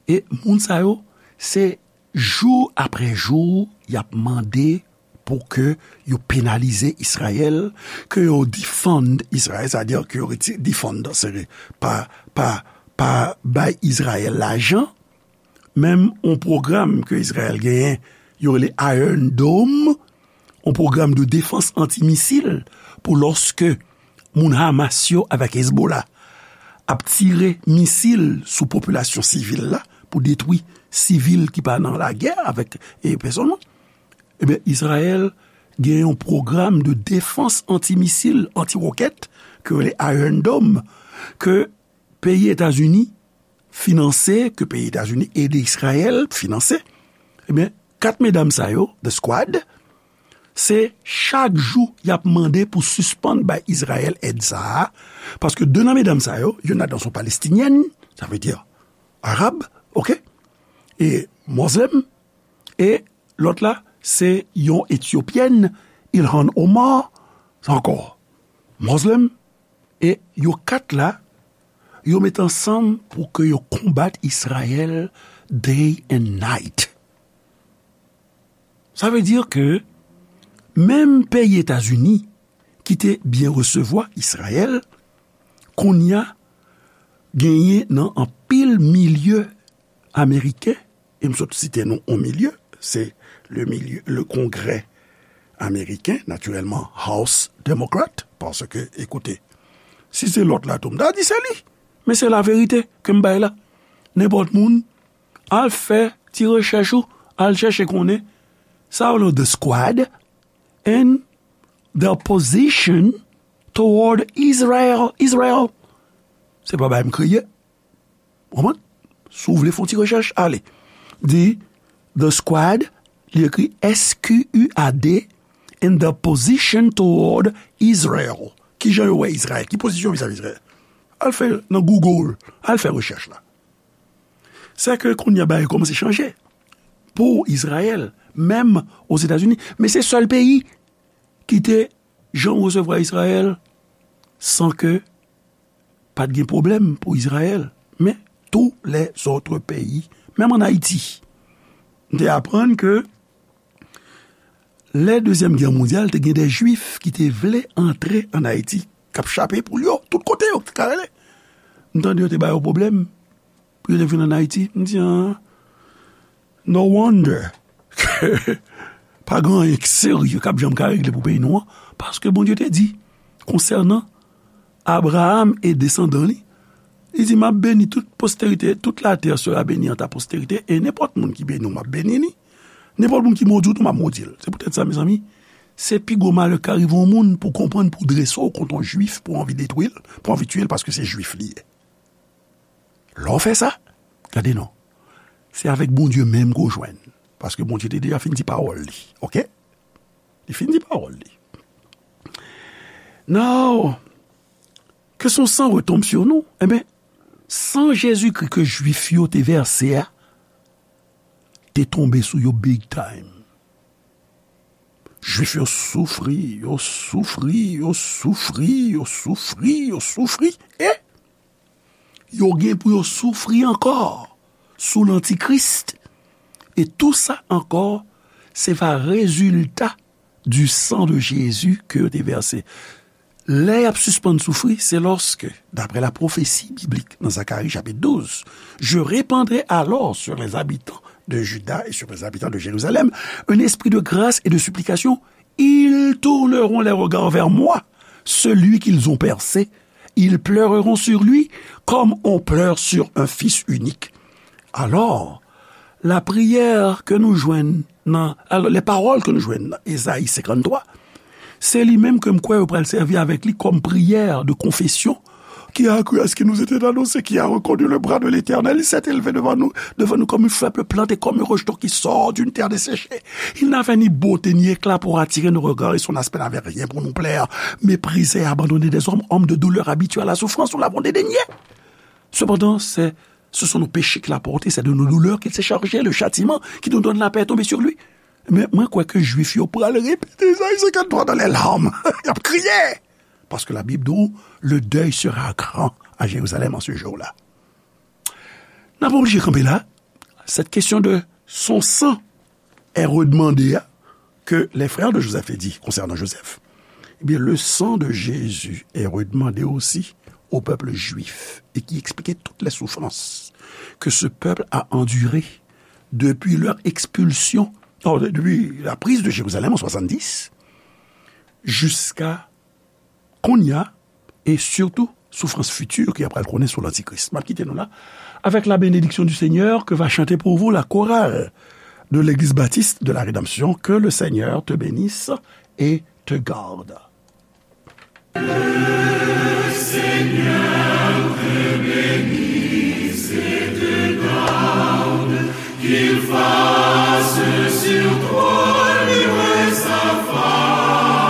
E moun sa yo, se jou apre jou, y ap mande pou ke yo penalize Izrayèl, ke yo defund Izrayèl, sa vle di ke yo reti-, defund, se pa, pa, pa bay Izrayèl lajan, menm yon pwogram ke Izrayèl genyen, yo rele Iron Dome, yon pwogram de defans antimisil pou lòske moun Hamas yo avèk Hezbollah ap tire misil sou popilasyon sivil la pou detwi sivil ki pa nan lagè avèk, e, pèsonn. Ebyen, Izrayèl gen yon pwogram de defans antimisil, antiwokèt, ke yo rele Iron Dome, ke peyi Etazini finanse, ke peyi Etazini ede Izrayèl finanse, ebyen, kat medam sa yo, The Squad, se chak jou y ap mande pou sispann bay Izrayèl èd sa a, paske de nan medam sa yo, youn ladan se yon Palestinyèn, sa vle di arab, oke, e mozlèm, e lòt la, se yon Etyopyèn, Ilhan Omar, sa ankò mozlèm, e yo kat la, yo met ansanm pou ke yo konbat Izrayèl day and night. Sa vle di ke menm peyi Etazini, ki te byen resevwa Izrayèl, kounye a genyen nan anpil milye ameriken, e m sot site nou yon milye, se le milye, le Kongrè ameriken, natirèlman House Democrat, paske, ekoute, si se lòt la tou, m ta di se li, men se laverite ke m bay la. Nenpòt moun, al fè ti rechèch ou, al chèche konnen sa yo rele The Squad and their position toward Israel. Israel. Se pa bagay m kreye. Ou konprann? Si w vle fè yon ti rechèch, ale. Di The Squad, li ekri S Q U A D, and their position toward Israel. Kijan yo wè Izrayèl? Ki pozisyon vizavi Izrayèl? Al fè nan Google, al fè rechèch la. Se ke kounye a bagay kòmanse chanje pou Izrayèl, menm Ozetazini. Men se sèl peyi ki te janm resevwa Izrayèl san ke pa t gen pwoblèm pou Izrayèl. Men tou lèzòt peyi, menm ann Ayiti, m te aprann ke lè Dezyèm Gè Mondyal, te gen de Jwif ki te vle antre ann Ayiti, k ap chape poul yo, tout kote yo te ka rele. M tande yo te ba yo pwoblèm. yo te vin ann Ayiti. M di, ah, no wonder ke pa gen anyen k serye k ap janm ka regle pou peyi nou an, paske Bondye te di konsènan Abraham e desandan li, li di, "M ap beni tout posterite, toute la terre sera bénie en ta postérité, e nenpòt moun ki beni w, m ap beni li. Nenpòt moun ki modi w tou, m ap modi l." Se poutèt sa, mezanmi, se pi gwo malè k ka rive yon moun pou konprann, pou drese w kont yon jwif, pou anvi detwi l, pou anvi tiye l, paske se jwif li ye. Lè w fè sa, gade non, se avèk Bondye menm ke w jwenn. Paske Bondye te deja fin di pawòl li, oke? Li fin di pawòl li. Now, que son sang retombe sur nous. Enben, san Jezikri ke Jwif yo te vèse a, te tonbe sou yo big time. Jwif yo soufri, yo soufri, yo soufri, yo soufri, yo soufri, e yo gen pou yo soufri ankò sou lantikris. E tou sa ankò, se va rezilta du sang de Jésus ke yo te vèse. Lè y ap sispann soufri, se lòske, d'après la prophétie biblique dans Zacharie chapitre douze, je répandrai alors sur les habitants de Juda et sur les habitants de Jérusalem un esprit de grâce et de supplication. Ils tourneront les regards vers moi, celui qu'ils ont percé. Ils pleureront sur lui comme on pleure sur un fils unique. Alors, la prière que nous jwenn nan, alors, les paroles que nous jwenn nan Ezayi senkanntwa, se li menm ke m kwè yo pral sèvi avèk li kòm priyè de konfesyon. Qui a cru à ce qui nous était annoncé, qui a reconnu le bras de l'Éternel? Il s'est élevé devant nous, devant nous comme un fleuve planté, comme un rejeton qui sort d'une terre desséchée. Il n'avait ni beauté ni éclat pour attirer nos regards, et son aspect n'avait rien pour nous plaire. Méprisé et abandonné des hommes, homme de douleur, habitué à la souffrance, nous l'avons dédaigné. Cependant, c'est, ce sont nos péchés qu'il a portés, c'est de nos douleurs qu'il s'est chargé, le châtiment qui nous donne la paix est tombé sur lui. Men mwen kwè ke Jwif yo pral repete Ezayi senkanntwa dans les larmes. Y ap kriye. Paske la Bib di w, le deuil sera grand à Jérusalem en ce jour-là. N ap oblije kanpe la. Cette question de son sang est redemandée, hein, que les frères de Joseph aient dit concernant Joseph. Eh bien, le sang de Jésus est redemandé aussi au peuple juif et qui expliquait toutes les souffrances que ce peuple a endurées depuis leur expulsion, oh, depuis la prise de Jérusalem en soixante-dix, jusqu'à kounye a, e sitou soufrans fiti ke y ap pral konnen sou lantikris. M ap kite nou la avec la bénédiction du Seigneur que va chanter pour vous la chorale de l'Église Baptiste de la Rédemption. Que le Seigneur te bénisse et te garde. Qu'il fasse sur toi luire sa face,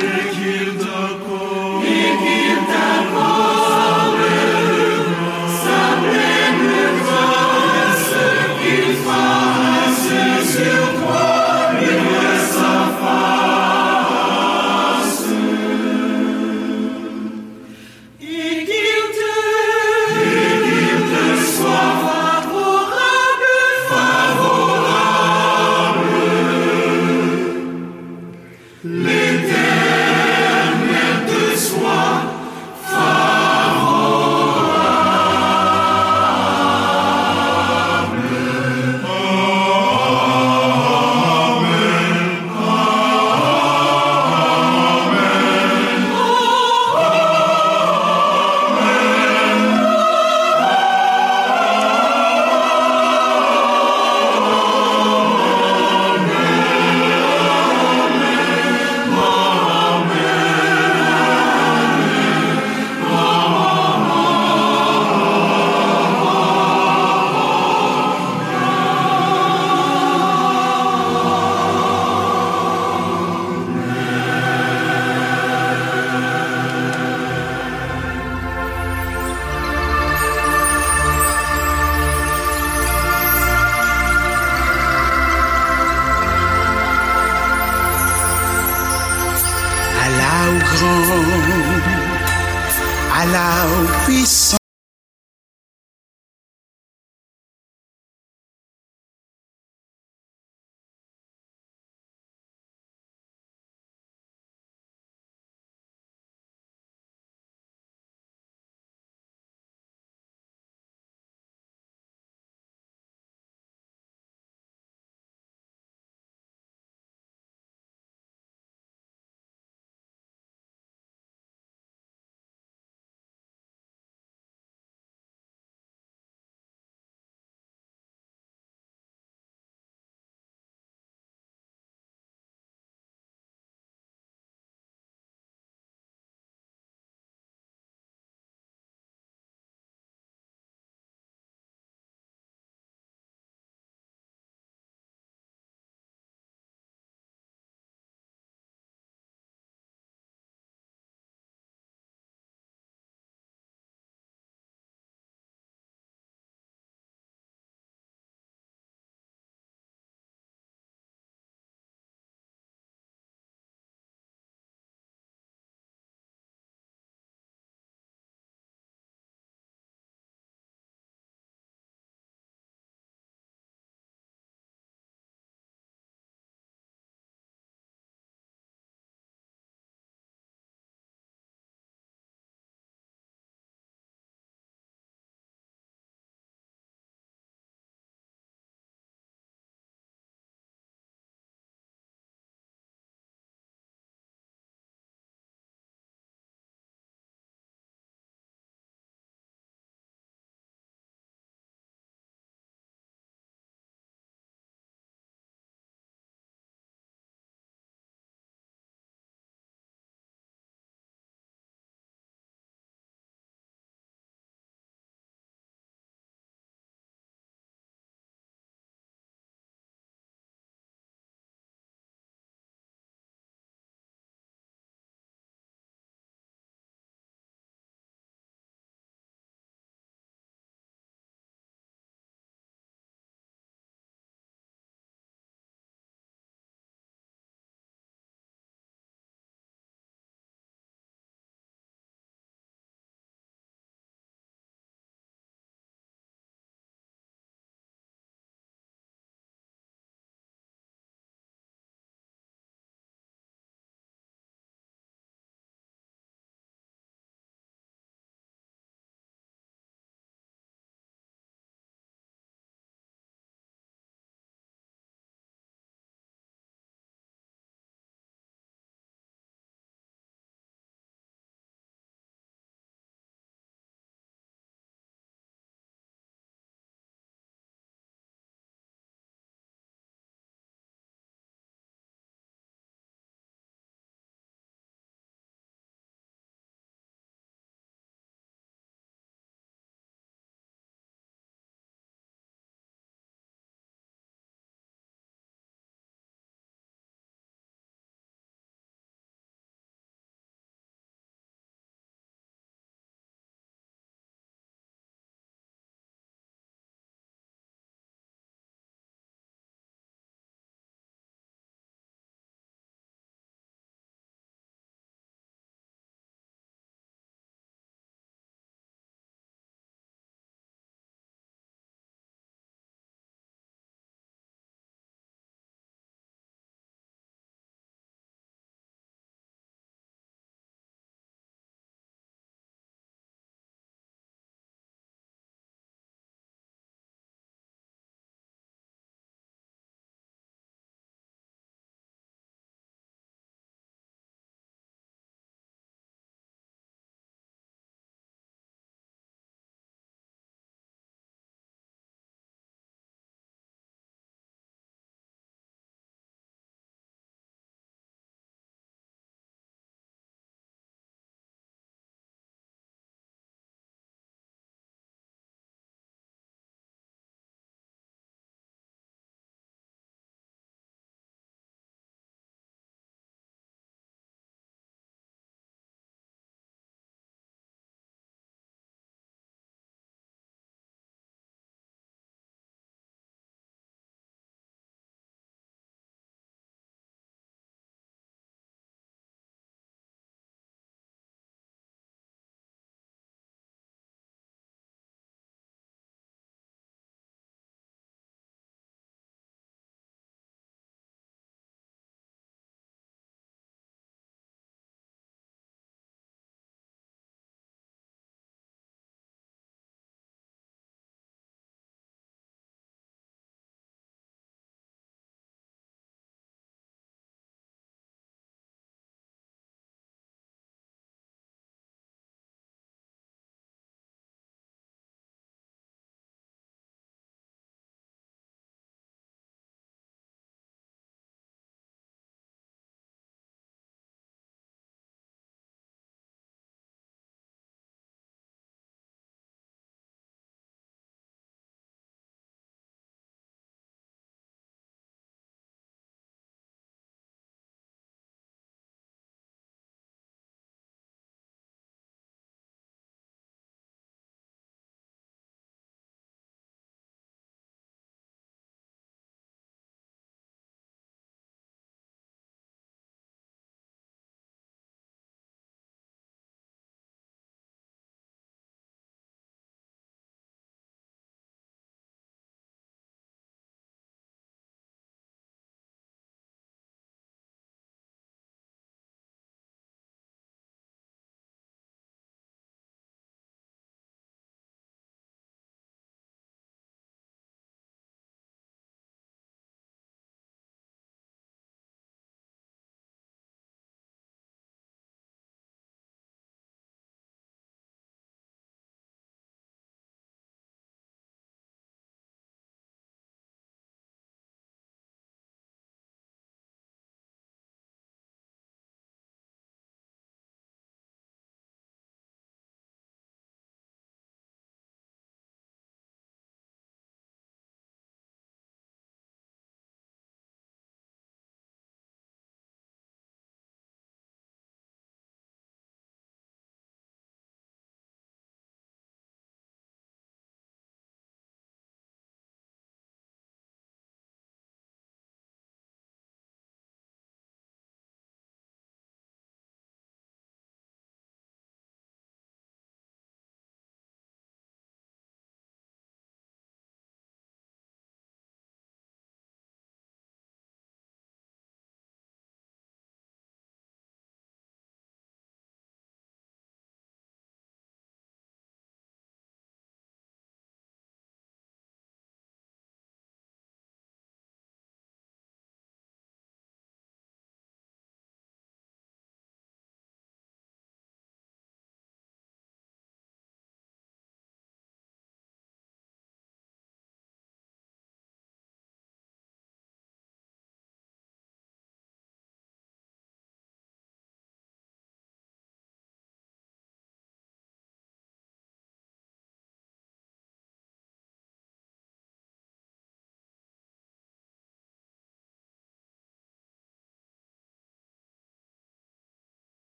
et qu'il t'accorde, et qu'il t'accorde sa pleine grâce, qu'il fasse sur toi luire sa face. Et qu'il te, et qu'il te soit favorable, favorable. L'Éternel te soit favorable. Amen. Ala ou gran, ala ou pwisan.